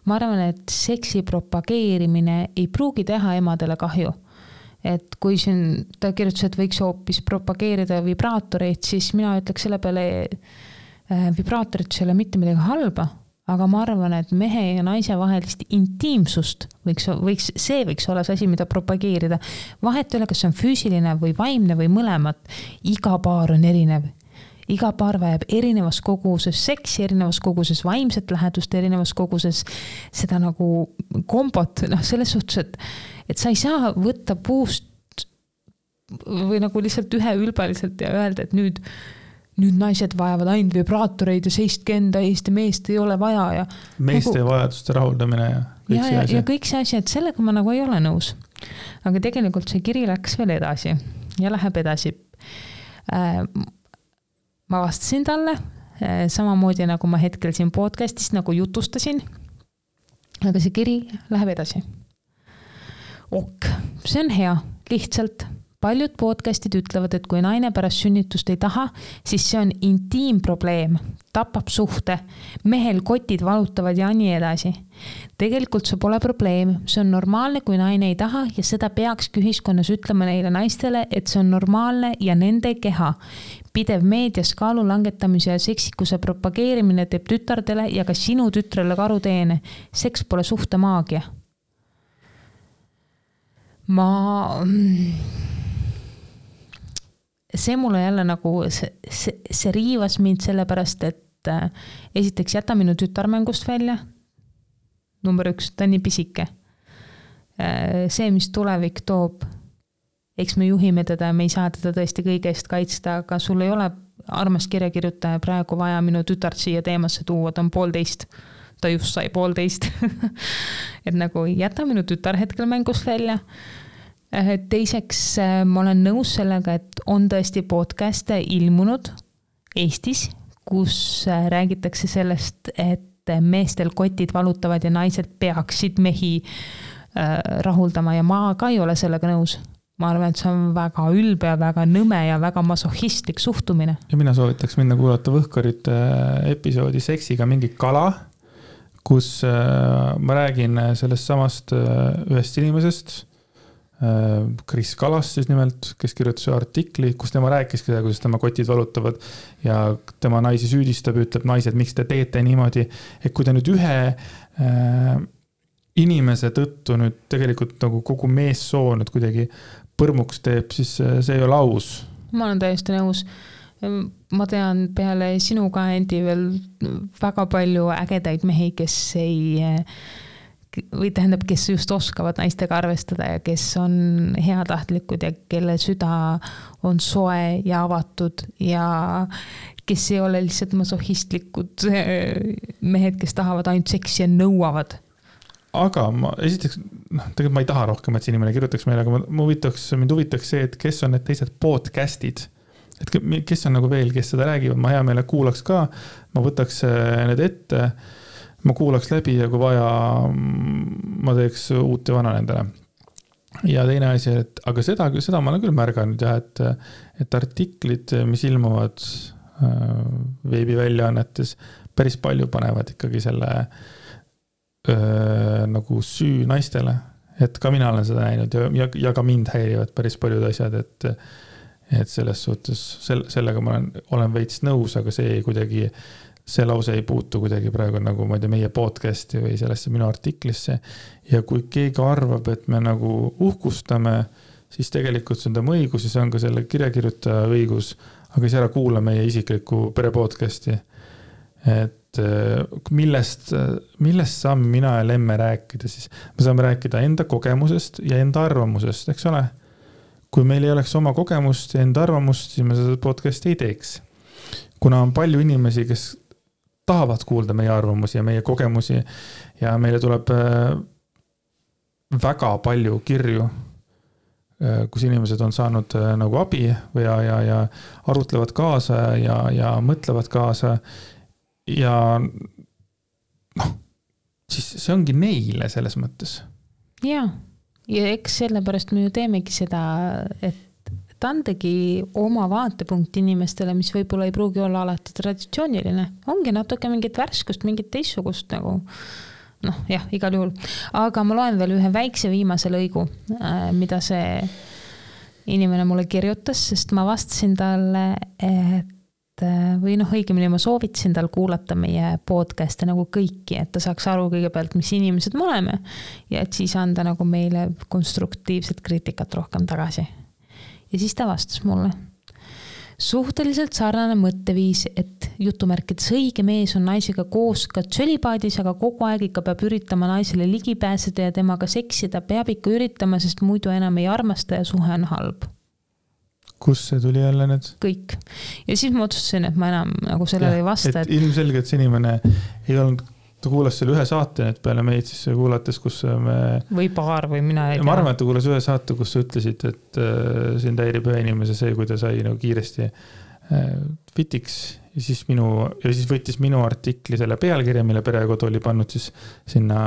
Speaker 1: ma arvan, et seksi propageerimine ei pruugi teha emadele kahju. Et kui siin ta kirjutas, et võiks hoopis propageerida vibraatoreid, siis mina ütleks selle peale vibraatorid ei ole mitte midagi halba, aga ma arvan, et mehe ja naise vahelist intiimsust võiks olla see asi, mida propageerida. Vahet ei ole, kas see on füüsiline või vaimne või mõlemat. Iga paar on erinev. Iga paar vajab erinevas koguses seksi, erinevas koguses vaimset lähedust, erinevas koguses seda nagu kombot, selles suhtes, et sa ei saa võtta puust või nagu lihtsalt üheülbaliselt ja öelda, et nüüd naised vajavad ainult vibraatoreid ja seistke enda eest ja meest ei ole vaja. Ja
Speaker 2: meeste nagu, vajaduste rahuldamine ja kõik see asi.
Speaker 1: Ja kõik see asi, et sellega ma nagu ei ole nõus. Aga tegelikult see kiri läks veel edasi ja läheb edasi. Ma vastasin talle samamoodi nagu ma hetkel siin podcastis nagu jutustasin, aga see kiri läheb edasi. See on hea, lihtsalt paljud podcastid ütlevad, et kui naine pärast sünnitust ei taha, siis see on intiimprobleem, tapab suhte, mehel kotid valutavad ja nii edasi. Tegelikult see pole probleem, see on normaalne, kui naine ei taha ja seda peakski ühiskonnas ütlema neile naistele, et see on normaalne ja nende keha. Pidev meedias kaalu langetamise ja seksikuse propageerimine teeb tütardele ja ka sinu tütrele karuteene. Seks pole suhte maagia. See mulle jälle nagu, see riivas mind sellepärast, et esiteks jäta minu tütarmängust välja. Number 1, ta on nii pisike. See, mis tulevik toob, eks me juhime teda ja me ei saa teda tõesti kõige eest kaitsta, aga sul ei ole armas kirjakirjutaja praegu vaja minu tütart siia teemasse tuua, ta on 1,5. Ta just sai 1,5. Et nagu jäta minu tütar hetkel mängust välja. Teiseks, ma olen nõus sellega, et on tõesti podcaste ilmunud Eestis, kus räägitakse sellest, et meestel kotid valutavad ja naised peaksid mehi rahuldama ja ma ka ei ole sellega nõus. ma arvan, et see on väga ülbe ja väga nõme ja väga masohhistlik suhtumine.
Speaker 2: Ja mina soovitaks minna kuulata Võhkarite episoodi Seksiga mingi kala, kus ma räägin sellest samast ühest inimesest, Kris Kalas siis nimelt, kes kirjutas artikli, kus tema rääkiski seda, kuidas tema kotid valutavad ja tema naisi süüdistab, ütleb naised, miks te teete niimoodi, et kui te nüüd ühe inimese tõttu nüüd tegelikult nagu kogu meessoo nüüd kuidagi põrmuks teeb, siis see ei ole aus.
Speaker 1: Ma olen täiesti nõus. Ma tean peale sinu ka endi veel väga palju ägedaid mehi, kes või tähendab, kes just oskavad naistega arvestada ja kes on heatahtlikud ja kelle süda on soe ja avatud ja kes ei ole lihtsalt masohhistlikud mehed, kes tahavad ainult seksi ja nõuavad.
Speaker 2: Aga esiteks, tegelikult ma ei taha rohkem, et see inimene kirjutaks meile, aga mind huvitaks see, et kes on need teised podcastid, et kes on nagu veel, kes seda räägivad, ma hea meele kuulaks ka, ma võtaks need ette, ma kuulaks läbi ja kui vaja, ma teeks uut ja vana nendele. Ja teine asi, aga seda ma olen küll märganud, ja, et artiklid, mis ilmuvad veebiväljaannetes, päris palju panevad ikkagi selle nagu süü naistele. Et ka mina olen seda näinud ja ka mind häirivad päris paljud asjad, et selles suhtes, sellega ma olen veits nõus, aga see lause ei puutu kuidagi praegu nagu ma ei tea, meie podcasti või sellesse minu artiklisse. Ja kui keegi arvab, et me nagu uhkustame, siis tegelikult see on tema õigus ja see on ka selle kirjakirjutaja õigus, aga siis ära kuula meie isiklikku perepodcasti. Et millest saame mina ja Lemme rääkida, siis me saame rääkida enda kogemusest ja enda arvamusest, eks ole? Kui meil ei oleks oma kogemust ja enda arvamust, siis me seda podcasti ei teeks. Kuna on palju inimesi, kes tahavad kuulda meie arvamusi ja meie kogemusi ja meile tuleb väga palju kirju, kus inimesed on saanud nagu abi ja arutlevad kaasa ja mõtlevad kaasa ja siis see ongi neile selles mõttes.
Speaker 1: Ja eks sellepärast me ju teemegi seda, et andegi oma vaatepunkt inimestele, mis võib-olla ei pruugi olla alati traditsiooniline. Ongi natuke mingit värskust, mingit teissugust nagu, igal juhul. Aga ma loen veel ühe väikse viimase lõigu, mida see inimene mulle kirjutas, sest ma vastasin talle, õigemini ma soovitasin tal kuulata meie podcast'e nagu kõiki, et ta saaks aru kõigepealt, mis inimesed me oleme ja et siis anda nagu meile konstruktiivset kriitikat rohkem tagasi. Ja siis ta vastas mulle. Suhteliselt sarnane mõtteviis, et jutumärkides õige mees on naisega koos ka tsölipaadis, aga kogu aeg ikka peab üritama naisele ligi pääseda ja temaga seksida, peab ikka üritama, sest muidu enam ei armasta ja suhe on halb.
Speaker 2: Kus see tuli jälle nüüd?
Speaker 1: Kõik. Ja siis ma otsustasin, et ma enam nagu sellele ei vasta.
Speaker 2: Et ilmselgelt see inimene ei olnud, ta kuulas selle ühe saate nüüd peale meid siis kuulates, kus me... Või paar või mina ei tea. Ma arvan, et ta kuulas ühe saate, kus sa ütlesid, et sind häirib ühe inimese see, kui ta sai nagu kiiresti fitiks ja siis võttis minu artikli selle pealkirja, mille Perekodu oli pannud siis sinna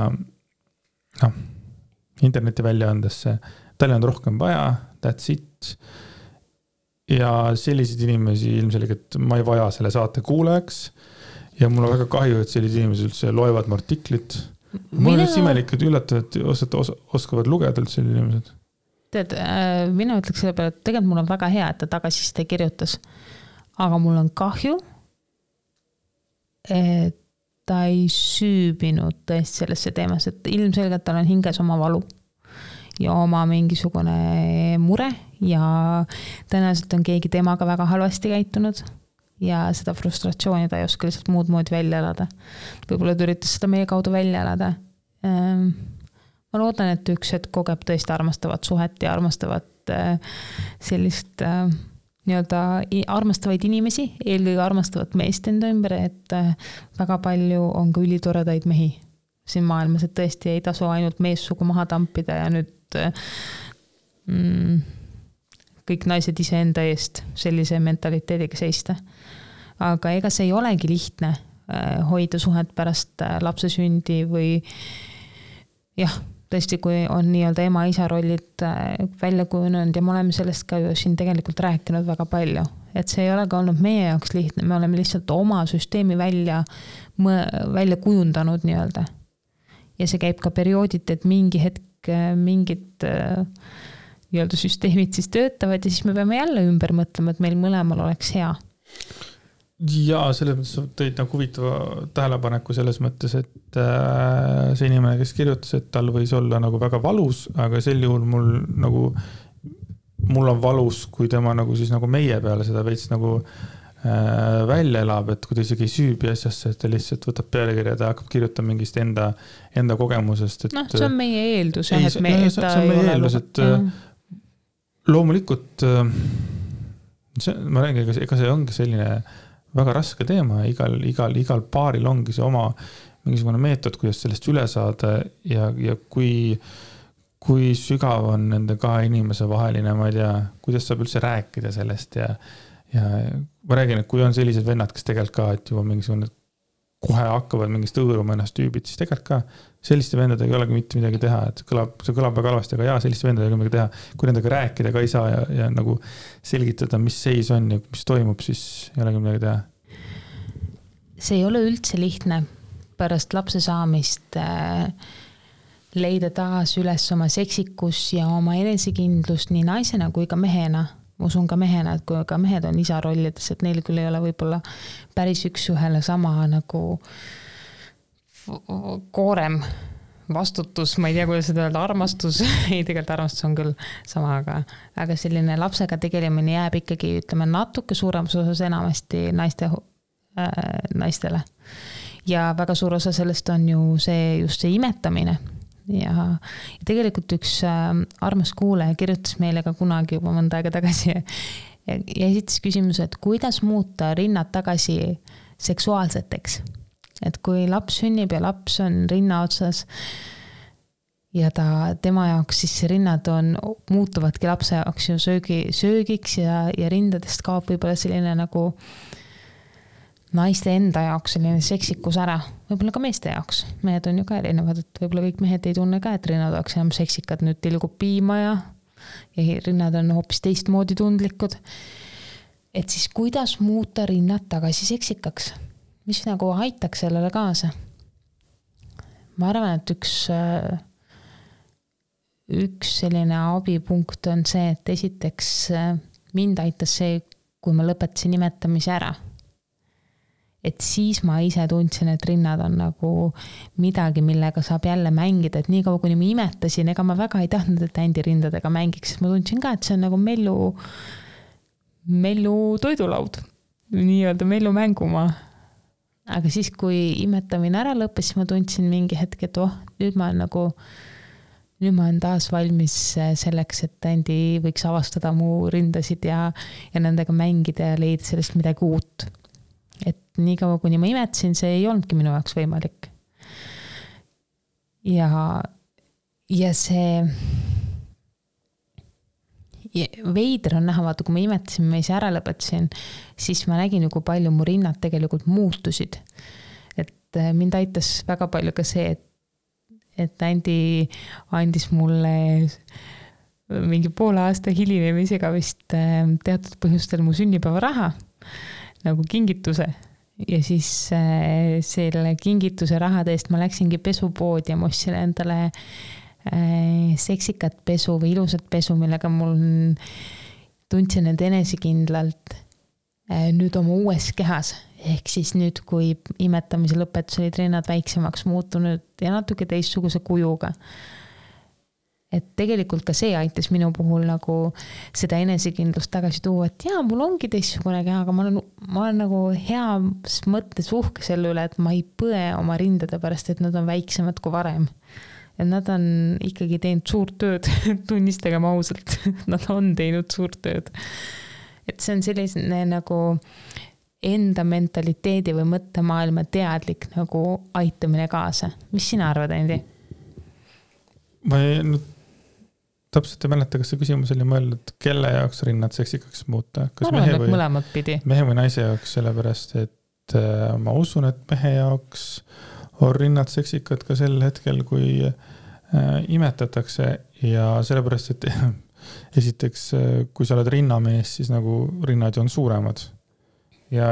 Speaker 2: interneti väljaandesse. Tal on rohkem vaja, that's it. Ja selliseid inimesi ilmselgelt ma ei vaja selle saate kuulajaks. Ja mul on väga kahju, et sellised inimesed üldse loevad mu artiklit. Mul on üldse imelik, et üllatavad, et oskavad lugeda üldse sellised inimesed.
Speaker 1: Tead, mina ütleks selle peale, et tegelikult mul on väga hea, et ta tagasiside kirjutas. Aga mul on kahju, et ta ei süübinud tõesti sellesse teemas, et ilmselgelt tal on hinges oma valu ja oma mingisugune mure ja tõenäoliselt on keegi temaga väga halvasti käitunud. Ja seda frustratsiooni ta ei oska lihtsalt muud moodi välja elada. Võib-olla ta üritas seda meie kaudu välja elada. Ma loodan, et üks hetk kogeb tõesti armastavat suhet ja armastavat sellist armastavaid inimesi, eelkõige armastavat meest enda ümber, et väga palju on ka ülitoredaid mehi siin maailmas, et tõesti ei tasu ainult meessugu maha tampida ja nüüd kõik naised ise enda eest sellise mentaliteediga seista. Aga ega see ei olegi lihtne hoida suhet pärast lapse sündi või tõesti, kui on nii-öelda ema-isa rollid välja kujunenud ja me oleme sellest ka ju siin tegelikult rääkinud väga palju, et see ei ole ka olnud meie jaoks lihtne, me oleme lihtsalt oma süsteemi välja kujundanud nii-öelda. Ja see käib ka periooditi, et mingi hetk mingid nii-öelda süsteemid siis töötavad ja siis me peame jälle ümber mõtlema, et meil mõlemal oleks hea.
Speaker 2: Ja selles mõttes tõid nagu huvitava tähelepaneku selles mõttes, et see inimene, kes kirjutas, et tal võis olla nagu väga valus, aga sel juhul mul on valus, kui tema nagu siis nagu meie peale seda veits nagu välja elab, et kui ta isegi ei süübi asjasse, et ta lihtsalt võtab pealekirja ja ta hakkab kirjutama mingist enda kogemusest. Et,
Speaker 1: see on meie eeldus.
Speaker 2: See on meie eeldus, et loomulikult ma räägin, ega see ongi selline väga raske teema, igal paaril ongi see oma mingisugune meetod, kuidas sellest üle saada ja kui sügav on nende kahe inimese vaheline, ma ei tea, kuidas saab üldse rääkida sellest ja ma räägin, et kui on sellised vennad, kes tegelikult ka, et juba mingisugune kohe hakkavad mingist õõruma ennast tüübid, siis tegelikult ka selliste vendadega ei olegi mitte midagi teha, et see kõlab väga halvasti, aga selliste vendadega midagi teha, kui nendega rääkida ka ei saa ja nagu selgitada, mis seis on ja mis toimub, siis ei olegi midagi teha.
Speaker 1: See ei ole üldse lihtne pärast lapse saamist leida taas üles oma seksikus ja oma enesekindlus nii naisena kui ka mehena. Ma usun ka mehena, et kui ka mehed on isa rollides, et neil küll ei ole võib-olla päris üks-ühele sama nagu koorem vastutus, ma ei tea, kuidas seda öelda, armastus, ei tegelikult armastus on küll sama, aga selline lapsega tegelemine jääb ikkagi, ütleme, natuke suuremas osas enamasti naistele. Ja väga suur osa sellest on ju just see imetamine. Ja tegelikult üks armas kuulaja kirjutas meile ka kunagi juba mõnda aega tagasi ja esitas küsimuse, et kuidas muuta rinnad tagasi seksuaalseteks. Et kui laps sünnib ja laps on rinna otsas ja tema jaoks siis rinnad muutuvadki lapse jaoks ju söögiks ja rindadest kaob võib-olla selline nagu naiste enda jaoks selline seksikus ära, võib-olla ka meeste jaoks. Mehed on ju ka erinevad, et võib-olla kõik mehed ei tunne ka, et rinnad oleks enam seksikad, nüüd tilgub piima ja rinnad on hoopis teistmoodi tundlikud. Et siis kuidas muuta rinnad tagasi seksikaks? Mis nagu aitaks sellele kaasa? Ma arvan, et üks selline abipunkt on see, et esiteks mind aitas see, kui ma lõpetasin imetamise ära. Et siis ma ise tundsin, et rinnad on nagu midagi, millega saab jälle mängida, et nii kaua kuni ma imetasin, ega ma väga ei tahtnud, et Ändi rindadega mängiks, sest ma tundsin ka, et see on nagu mellu toidulaud, nii-öelda mellu mängumaa. Aga siis, kui imetamine ära lõppes, siis ma tundsin mingi hetk, et nüüd ma olen taas valmis selleks, et Ändi võiks avastada mu rindasid ja nendega mängida ja leida sellest midagi uut. Et nii kaua, kuni ma imetasin, see ei olnudki minu jaoks võimalik. Ja see veider on näha, vaata, kui ma imetasin, ma ise ära lõpetasin, siis ma nägin ju, kui palju mu rinnad tegelikult muutusid. Et mind aitas väga palju ka see, et Ändi andis mulle mingi poole aasta hilinemisega vist teatud põhjustel mu sünnipäeva raha nagu kingituse ja siis selle kingituse rahade eest ma läksingi pesupoodi ja ma ostsin endale seksikat pesu või ilusat pesu, millega mul tundsin end enesekindlalt nüüd oma uues kehas. Ehk siis nüüd, kui imetamise lõpetus olid rinnad väiksemaks muutunud ja natuke teistsuguse kujuga. Et tegelikult ka see aitas minu puhul nagu seda enesekindlust tagasi tuua, et mul ongi teistsugune keha, aga ma olen nagu heas mõttes uhke selle üle, et ma ei põe oma rindade pärast, et nad on väiksemad kui varem. Ja nad on ikkagi teinud suurt tööd, tunnistagem ausalt, nad on teinud suurt tööd. Et see on selline nagu enda mentaliteedi või mõttemaailma teadlik nagu aitamine kaasa. Mis sina arvad, Andi?
Speaker 2: Ma täpselt ei mäleta, kas see küsimus oli mõeldud, kelle jaoks rinnad seksikaks muuta? Kas mehe või naise jaoks, sellepärast, et ma usun, et mehe jaoks on rinnad seksikad ka sel hetkel, kui imetatakse ja sellepärast, et esiteks, kui sa oled rinnamees, siis nagu rinnad on suuremad ja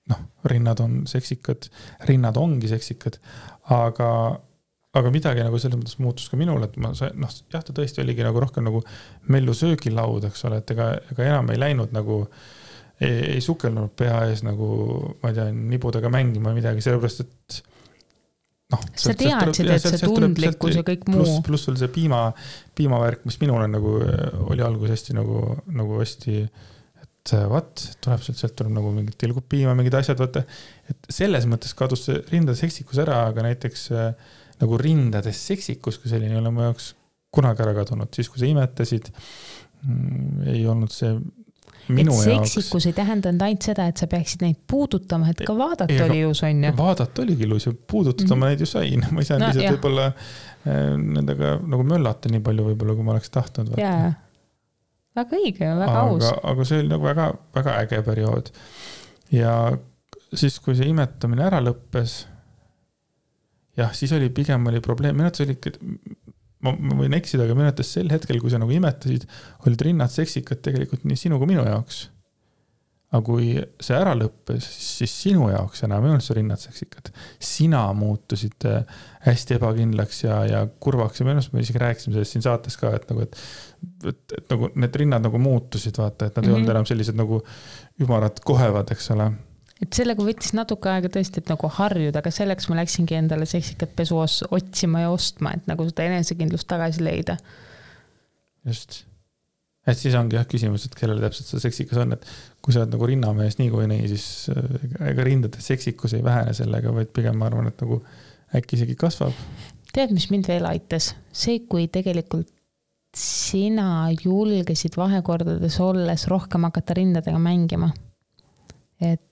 Speaker 2: noh, rinnad on seksikad, rinnad ongi seksikad, aga midagi nagu selles mõttes muutus ka minul, et ma sain, noh, jah, ta tõesti oligi nagu rohkem nagu mellu söögilaud, eks ole, et ega enam ei läinud nagu, ei sukelnud pea ees nagu, ma ei tea, nibudega mängima midagi, sellepärast, et noh.
Speaker 1: Sa teadsid, et see tundlikkus ja kõik muu.
Speaker 2: Pluss oli see piimavärk, mis minul on nagu, oli algus hästi nagu hästi, et tuleb sealt tuleb nagu mingid tilgub piima, mingid asjad, vaata, et selles mõttes kadus see rindade seksikus ära, aga näiteks nagu rindades seksikus, kui selline ei ole mu jaoks kunagi ära kadunud, siis kui sa imetasid, ei olnud see minu jaoks. Seksikus
Speaker 1: ei tähendanud ainult seda, et sa peaksid neid puudutama, et ka vaadata oli ilus, on ju.
Speaker 2: Vaadata oligi ilus ja puudutada ma neid ju sain. Ma ei saanud lihtsalt võib-olla nendega nagu möllata nii palju võib-olla, kui ma oleks tahtnud.
Speaker 1: Jaa, väga õige, väga aus.
Speaker 2: Aga see oli nagu väga, väga äge periood. Ja siis, kui see imetamine ära lõppes, jah, siis oli pigem oli probleem. Minetus oli, ma võin eksida, aga minetus sel hetkel, kui sa nagu imetasid, olid rinnad seksikad tegelikult nii sinu kui minu jaoks. Aga kui see ära lõppes, siis sinu jaoks enam ei olnud see rinnad seksikad. Sina muutusid hästi ebakindlaks ja kurvaks. Ja me isegi rääkisime sellest siin saates ka, et nagu need rinnad nagu muutusid, vaata, et nad ei olnud enam sellised nagu ümarad kohevad, eks ole.
Speaker 1: Et sellega võttis natuke aega tõesti, et nagu harjuda, aga selleks ma läksingi endale seksikat pesu otsima ja ostma, et nagu seda enesekindlust tagasi leida.
Speaker 2: Just. Et siis ongi jah küsimus, et kellele täpselt see seksikas on, et kui sa oled nagu rinnamees nii kui nii, siis ega rindade seksikus ei vähene sellega, vaid pigem ma arvan, et nagu äkki isegi kasvab.
Speaker 1: Tead, mis mind veel aitas? See, kui tegelikult sina julgesid vahekordades olles rohkem hakata rindadega mängima. Et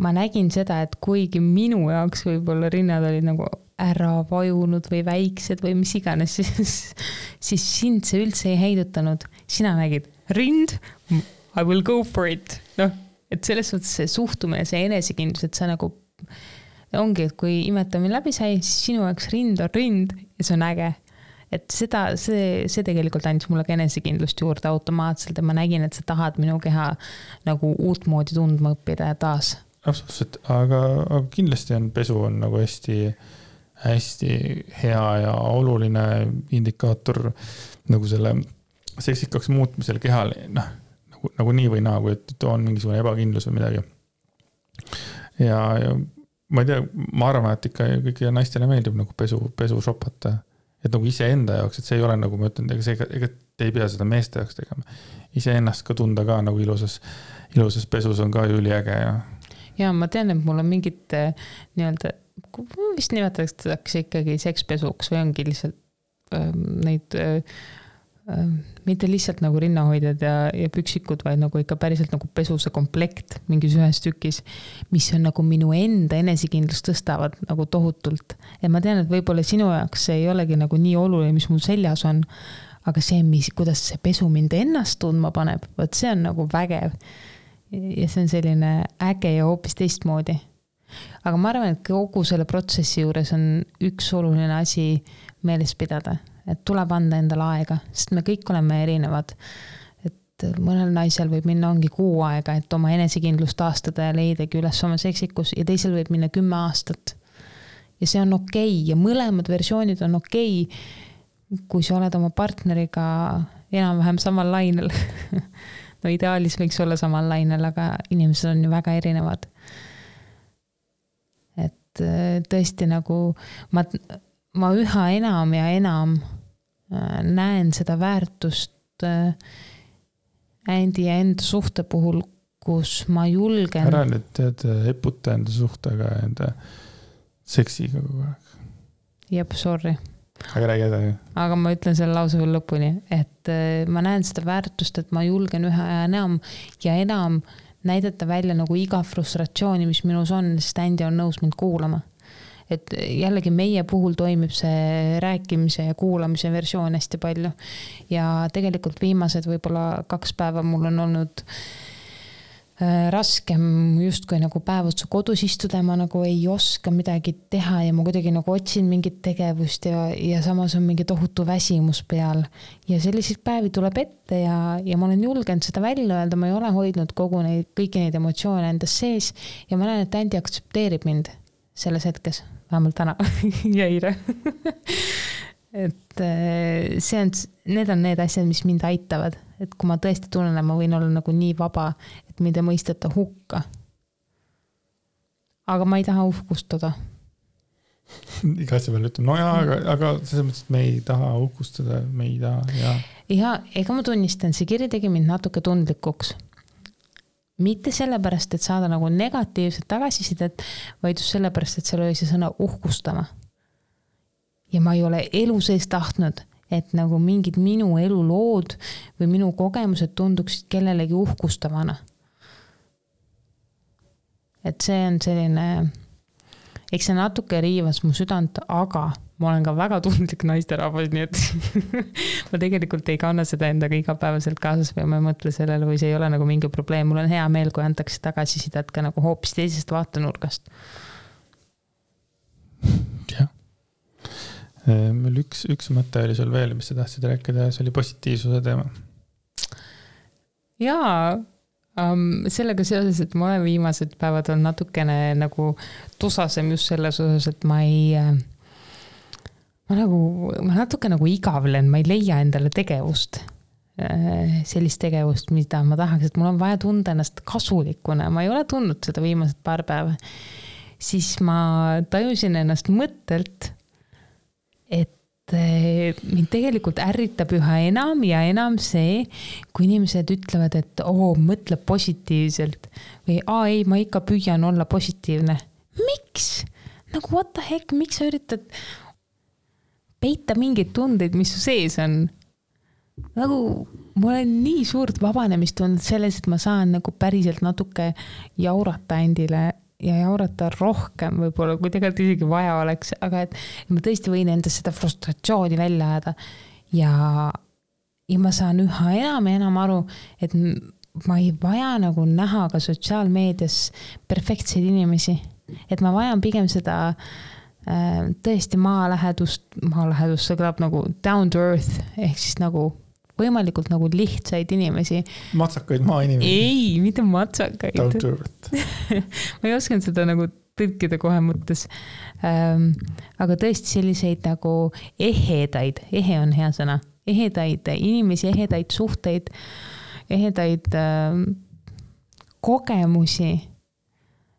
Speaker 1: ma nägin seda, et kuigi minu jaoks võib-olla rinnad olid nagu ära vajunud või väiksed või mis iganes, siis sind see üldse ei heidutanud. Sina nägid rind, I will go for it. No, et selles mõttes see suhtumine, see enesekindlus, et sa nagu ongi, et kui imetamine läbi sai, siis sinu jaoks rind on rind ja see on äge. Et see tegelikult andis mulle ka enesekindlust juurde automaatselt ja ma nägin, et sa tahad minu keha nagu uut moodi tundma õppida ja taas.
Speaker 2: Absoluutselt, aga kindlasti on pesu on nagu hästi, hästi hea ja oluline indikaator nagu selle seksikaks muutmisel kehal, nagu nii või naa, kui et on mingisugune ebakindlus või midagi. Ja ma ei tea, ma arvan, et ikka kõiki naistele meeldib nagu pesu šopata. Et nagu ise enda jaoks, et see ei ole nagu ma ütlen, ega te ei pea seda meeste jaoks tegema. Ise ennast ka tunda ka nagu ilusas pesus on ka üliäge.
Speaker 1: Ja ma tean, et mul on mingid nii-öelda, vist nimetatakse ikkagi sekspesuks või ongi lihtsalt neid mitte lihtsalt nagu rinnahoidjad ja püksikud, vaid nagu ikka päriselt nagu pesuse komplekt mingis ühes tükis, mis on nagu minu enda enesekindlust tõstavad nagu tohutult. Ja ma tean, et võib-olla sinu jaoks see ei olegi nagu nii oluline, mis mul seljas on, aga see, kuidas see pesu mind ennast tundma paneb, võt see on nagu vägev. Ja see on selline äge ja hoopis teistmoodi. Aga ma arvan, et kogu selle protsessi juures on üks oluline asi meeles pidada, et tuleb anda endale aega, sest me kõik oleme erinevad. Et mõnel naisel võib minna ongi 6 aega, et oma enesekindlust taastada ja leidagi üles oma seksikus ja teisel võib minna 10 aastat. Ja see on okei ja mõlemad versioonid on okei, kui sa oled oma partneriga enam-vähem samal lainel. No ideaalis võiks olla samal lainel, aga inimesed on ju väga erinevad. Et tõesti nagu ma üha enam ja enam näen seda väärtust Andi ja enda suhte puhul, kus ma julgen.
Speaker 2: Ära nüüd tead eputa enda suhtega ja enda seksiga kogu aeg.
Speaker 1: Jep, sorry.
Speaker 2: Aga räägi edasi.
Speaker 1: Aga ma ütlen selle lause veel lõpuni, et ma näen seda väärtust, et ma julgen üha enam näidata välja nagu iga frustratsiooni, mis minus on, sest Andi on nõus mind kuulama. Et jällegi meie puhul toimib see rääkimise ja kuulamise versioon hästi palju. Ja tegelikult viimased võib-olla 2 päeva mul on olnud raskem justkui nagu päev otsa kodus istuda, ma nagu ei oska midagi teha ja ma kuidagi nagu otsin mingit tegevust ja samas on mingi tohutu väsimus peal. Ja selliseid päevi tuleb ette ja ma olen julgenud seda välja öelda, ma ei ole hoidnud kõiki neid emotsioone endas sees ja ma näen, et Andi aktsepteerib mind selles hetkes, vähemalt täna ja eile. Et need on need asjad, mis mind aitavad. Et kui ma tõesti tunnen, et ma võin olla nagu nii vaba, et mind ei mõisteta hukka. Aga ma ei taha uhkustada.
Speaker 2: Iga asja peale ütleme, no jaa, aga selles mõttes, et me ei taha uhkustada, me ei taha,
Speaker 1: ja ega ma tunnistan, see kiri tegi mind natuke tundlikuks. Mitte sellepärast, et saada nagu negatiivset tagasisidet, vaid just sellepärast, et seal oli see sõna uhkustama. Ja ma ei ole elu sees tahtnud, et nagu mingid minu elulood või minu kogemused tunduksid kellelegi uhkustavana. Et see on selline, eks see natuke riivas mu südant, aga ma olen ka väga tundlik naisterahvas, nii et ma tegelikult ei kanna seda endaga igapäevaselt kaasas või ma ei mõtle sellele või see ei ole nagu mingi probleem. Mul on hea meel, kui antakse tagasisidet ka nagu hoopis teisest vaatenurgast.
Speaker 2: Jah. Meil üks mõte oli sul veel, mis sa tahtsid rääkida, see oli positiivsuse teema.
Speaker 1: Jaa, sellega seoses, et ma olen viimased päevad on natukene nagu tusasem just selles osas, et ma natuke nagu igavlen, ma ei leia endale tegevust, sellist tegevust, mida ma tahaks, et mul on vaja tunda ennast kasulikuna, ma ei ole tundnud seda viimased paar päeva, siis ma tajusin ennast mõttelt, et mind tegelikult ärritab üha enam ja enam see, kui inimesed ütlevad, et mõtle positiivselt või ei, ma ikka püüan olla positiivne. Miks? Nagu what the heck, miks sa üritad peita mingeid tundeid, mis su sees on? Nagu mul on nii suurt vabanemist tundnud selles, et ma saan nagu päriselt natuke jaurata endile ja jaurata rohkem võib-olla, kui tegelikult isegi vaja oleks, aga et ma tõesti võin endast seda frustratsiooni välja ajada ja ma saan üha enam ja enam aru, et ma ei vaja nagu näha ka sotsiaalmeedias perfektseid inimesi, et ma vajan pigem seda tõesti maalähedust, see kõlab nagu down to earth, ehk siis nagu võimalikult nagu lihtsaid inimesi.
Speaker 2: Matsakaid maainimesi.
Speaker 1: Ei, mitte matsakaid.
Speaker 2: Down to earth.
Speaker 1: Ma ei osanud seda nagu tõlkida kohe mõttes. Aga tõesti selliseid nagu ehedaid, ehe on hea sõna, ehedaid inimesi, ehedaid suhteid, ehedaid kogemusi.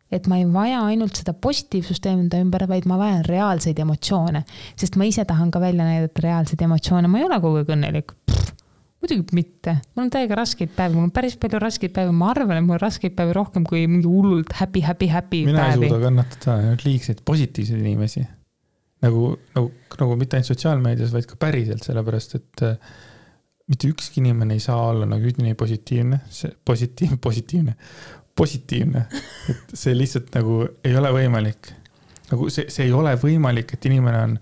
Speaker 1: Et ma ei vaja ainult seda positiivsust enda ümber, vaid ma vajan reaalseid emotsioone, sest ma ise tahan ka välja näidata reaalseid emotsioone. Ma ei ole kogu aeg õnnelik. Muidugi mitte. Mul on täiega raskeid päevi. Mul on päris palju raskeid päevi. Ma arvan, et mul on raskeid päevi rohkem kui mingi hullult happy
Speaker 2: Mina
Speaker 1: päevi.
Speaker 2: Ei suuda kannatada liigseid positiivseid inimesi. Nagu mitte ainult sotsiaalmeedias, vaid ka päriselt, sellepärast, et mitte ükski inimene ei saa olla nagu üdini positiivne. Et see lihtsalt nagu ei ole võimalik. Nagu see ei ole võimalik, et inimene on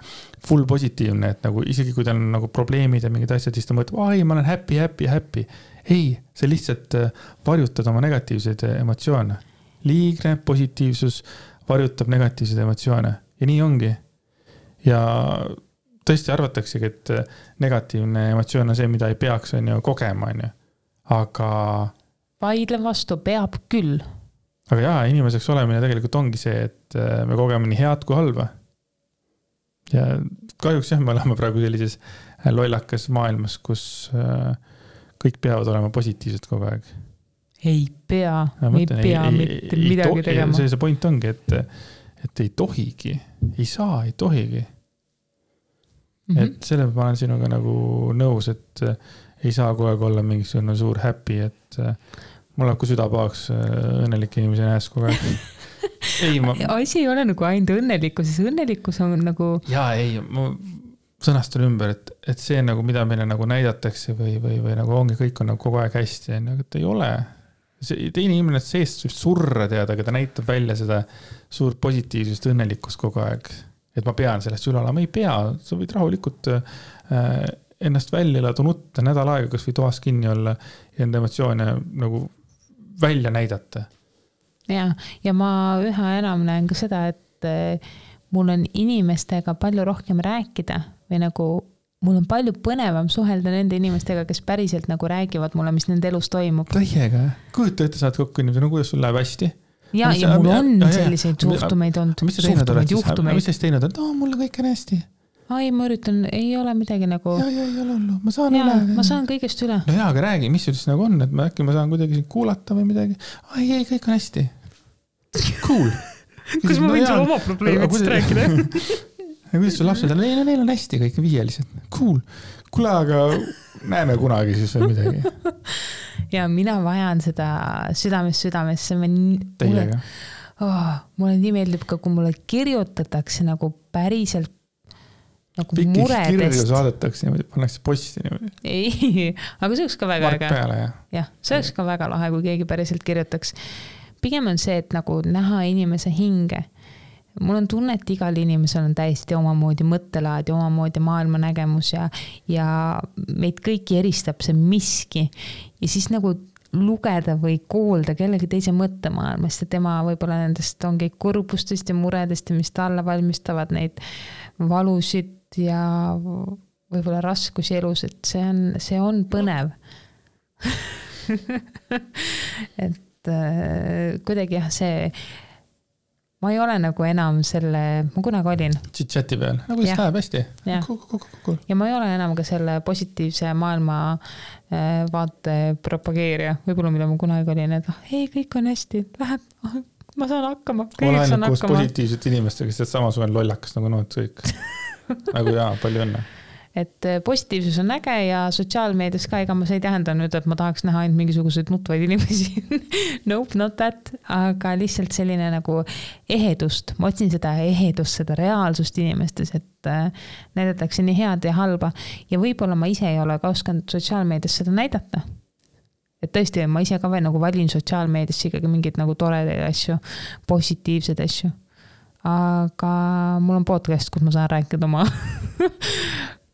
Speaker 2: full positiivne, et nagu isegi kui tal on nagu probleemid ja mingid asjad, siis ta mõtleb, ma olen happy. Ei, see lihtsalt varjutab oma negatiivseid emotsioone. Liigne positiivsus varjutab negatiivseid emotsioone. Ja nii ongi. Ja tõesti arvataksegi, et negatiivne emotsioon on see, mida ei peaks kogema. Aga
Speaker 1: vaidlen vastu, peab küll.
Speaker 2: Aga jaa, inimeseks olemine tegelikult ongi see, et me kogeme nii head kui halba. Ja kahjuks me oleme praegu sellises lollakas maailmas, kus kõik peavad olema positiivsed kogu aeg.
Speaker 1: Ei pea mitte midagi tegema.
Speaker 2: See point ongi, et ei tohigi, ei saa, ei tohigi. Et selle ma olen sinuga nagu nõus, et ei saa kogu aeg olla mingisugune suur happy, et mul läheb kui süda pahaks õnnelike inimese näes kogu aeg.
Speaker 1: Asi ei ole nagu ainult õnnelikkus, siis õnnelikkus on nagu...
Speaker 2: Jaa, ma sõnastan ümber, et see nagu, mida meile nagu näidatakse või nagu ongi, kõik on nagu kogu aeg hästi, et ei ole. Teine inimene seest võib surra teada, aga ta näitab välja seda suurt positiivsust õnnelikkust kogu aeg. Et ma pean sellest üle olema, ei pea, sa võid rahulikult ennast välja elada, nutta nädal aega, kas või toas kinni olla ja enda emotsioone nagu välja näidata.
Speaker 1: Ja ma üha enam näen ka seda, et mul on inimestega palju rohkem rääkida või nagu mul on palju põnevam suhelda nende inimestega, kes päriselt nagu räägivad mulle, mis nende elus toimub.
Speaker 2: Täiega, kujuta ette, saad kokku inimesi, no kuidas sul läheb hästi?
Speaker 1: Ja mul on selliseid suhtumeid olnud.
Speaker 2: Mis sa teinud oled? Mul kõik on hästi.
Speaker 1: Ai, ma üritan, ei ole midagi nagu...
Speaker 2: ei ole hullu, ma saan üle.
Speaker 1: Ma saan kõigest üle.
Speaker 2: No aga räägi, mis sul siis nagu on, et äkki ma saan kuidagi kuulata või midagi. Ai, kõik on hästi. Cool.
Speaker 1: Kus ma võin sulle oma probleemidest rääkida?
Speaker 2: Kuidas sul lapsed on? Neil on hästi kõik viielised. Cool. Kuule, aga näeme kunagi siis või midagi.
Speaker 1: Ja mina vajan seda südamesse.
Speaker 2: Teiega.
Speaker 1: Mulle nii meeldib ka, kui mulle kirjutatakse nagu päriselt nagu
Speaker 2: Pikis
Speaker 1: muredest.
Speaker 2: Pikis kirju saadetakse niimoodi, pannakse posti niimoodi.
Speaker 1: Ei, aga see oleks ka väga
Speaker 2: Mark peale,
Speaker 1: jah, see oleks ka väga lahe, kui keegi päriselt kirjutaks. Pigem on see, et nagu näha inimese hinge. Mul on tunne, et igal inimesel on täiesti omamoodi mõttelaad ja omamoodi maailmanägemus ja meid kõiki eristab see miski. Ja siis nagu lugeda või kuulda kellegi teise mõttemaailmast ja tema võib-olla nendest ongi kurbustest ja muredest ja mis talle valmistavad neid valusid ja võib-olla raskusi elus, et see on põnev. Et kuidagi jah, ma ei ole nagu enam ma kunagi olin.
Speaker 2: Chit-chati peal, nagu siis läheb hästi.
Speaker 1: Cool. Ja ma ei ole enam ka selle positiivse maailma vaate propageerija, võib-olla mida ma kunagi olin, et ei, kõik on hästi, läheb, ma saan hakkama.
Speaker 2: Olen ainult koos positiivsete inimestega, sest samasugune lollakas nagu nood kõik. Nagu palju õnne. Et positiivsus on äge ja sotsiaalmeedias ka, ega ma see ei tähenda nüüd, et ma tahaks näha ainult mingisuguseid nutvaid inimesi. Nope, not that. Aga lihtsalt selline nagu ehedust. Ma otsin seda ehedust, seda reaalsust inimestes, et näidatakse nii head ja halba. Ja võib-olla ma ise ei ole ka oskanud sotsiaalmeedias seda näidata. Et tõesti, ma ise ka veel nagu valin sotsiaalmeedias ikkagi mingid nagu toredaid asju, positiivsed asju. Aga mul on podcast, kus ma saan rääkida oma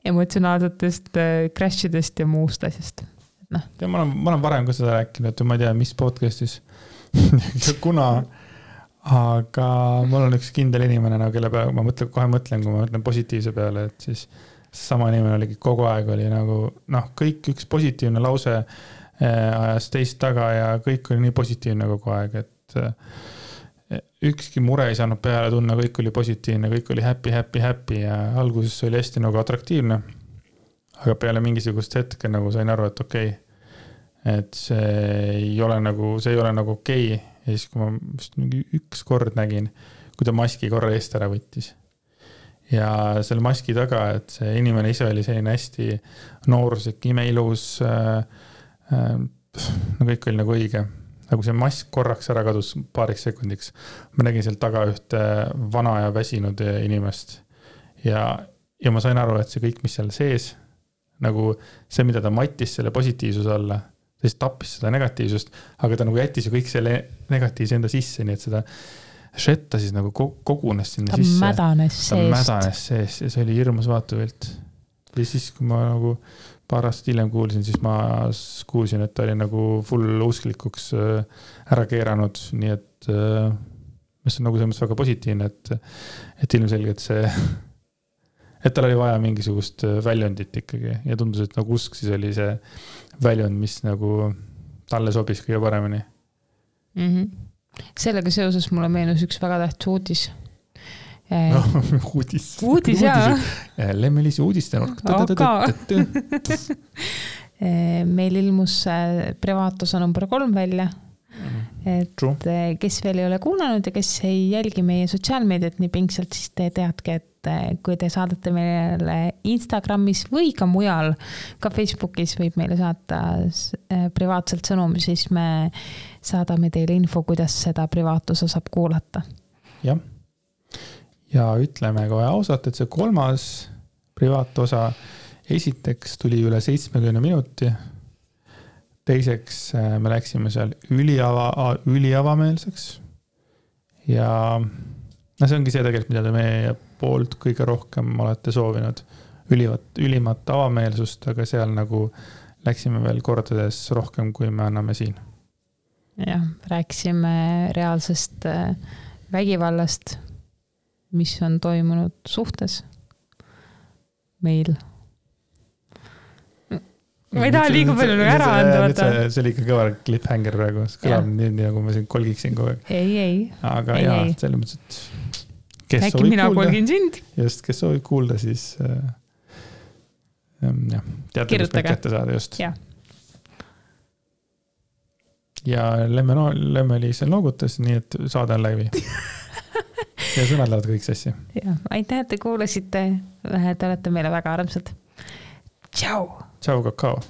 Speaker 2: emotsionaalsetest crashidest ja muust asjast. Ja ma olen varem ka seda rääkinud, et ma ei tea, mis podcastis kuna, aga mul on üks kindel inimene, kelle peale ma kohe mõtlen, kui ma mõtlen positiivse peale, et siis sama inimene oligi kogu aeg oli nagu, kõik üks positiivne lause ajas teist taga ja kõik oli nii positiivne kogu aeg, et ükski mure ei saanud peale tunna, kõik oli positiivne, kõik oli happy ja alguses oli hästi nagu atraktiivne, aga peale mingisugust hetke nagu sain aru, et okei, et see ei ole nagu okei. Ja siis, kui ma vist mingi üks kord nägin, kui ta maski korra eest ära võttis ja selle maski taga, et see inimene ise oli selline hästi nooruslik, imeilus, kõik oli nagu õige. Nagu see mask korraks ära kadus paariks sekundiks. Ma nägin seal taga ühte vana ja väsinud inimest. Ja ma sain aru, et see kõik, mis seal sees, nagu see, mida ta mattis selle positiivsuse alla, ta siis tappis seda negatiivsust, aga ta nagu jättis ju kõik selle negatiivse enda sisse, nii et seda šetta siis nagu kogunes sinna sisse.
Speaker 1: Ta mädanes
Speaker 2: seest ja see oli hirmus vaatuvilt. Ja siis, kui ma nagu paar aastat hiljem kuulsin, siis ma kuulsin, et ta oli nagu full usklikuks ära keeranud, nii et mis on nagu selles mõttes väga positiivne, et ilmselgelt see, et tal oli vaja mingisugust väljundit ikkagi ja tundus, et nagu usk siis oli see väljund, mis nagu talle sobis kõige paremini.
Speaker 1: Sellega seoses mulle meenus üks väga tähtis uudis.
Speaker 2: Uudis,
Speaker 1: jaa.
Speaker 2: Lemmelisi uudistenurk.
Speaker 1: Meil ilmus privaatosa number 3 välja. Et kes veel ei ole kuulanud ja kes ei jälgi meie sotsiaalmeediat nii pingsalt, siis te teadke, et kui te saadate meile Instagramis või ka mujal, ka Facebookis võib meile saata privaatselt sõnumi, siis me saadame teile info, kuidas seda privaatosa saab kuulata.
Speaker 2: Jah. Ja ütleme kohe ausalt, et see 3. privaatosa esiteks tuli üle 70 minuti. Teiseks me läksime seal üliavameelseks. Ja see ongi see tegelikult, mida te meie poolt kõige rohkem olete soovinud. Ülimat avameelsust, aga seal nagu läksime veel kordades rohkem, kui me anname siin.
Speaker 1: jah, rääkisime reaalsest vägivallast, mis on toimunud suhtes meil. Ma ei taha liiga palju ära anda.
Speaker 2: See oli ikka kõva cliffhanger praegu. See kõlab nii, nagu ma siin kolgiksin kogu aeg.
Speaker 1: Ei.
Speaker 2: Aga jaa, selles mõttes, et kes
Speaker 1: äkki mina kolgin sind.
Speaker 2: Just, kes soovib kuulda, siis jah, teate, kus meid kätte saada just. Ja Lemme-Liis noogutas, nii et saade on läbi. Ja sõnad lähevad kõik sassi.
Speaker 1: Ja, aitäh, et te kuulasite. Te olete meile väga armsad. Tšau!
Speaker 2: Tšau, kakao!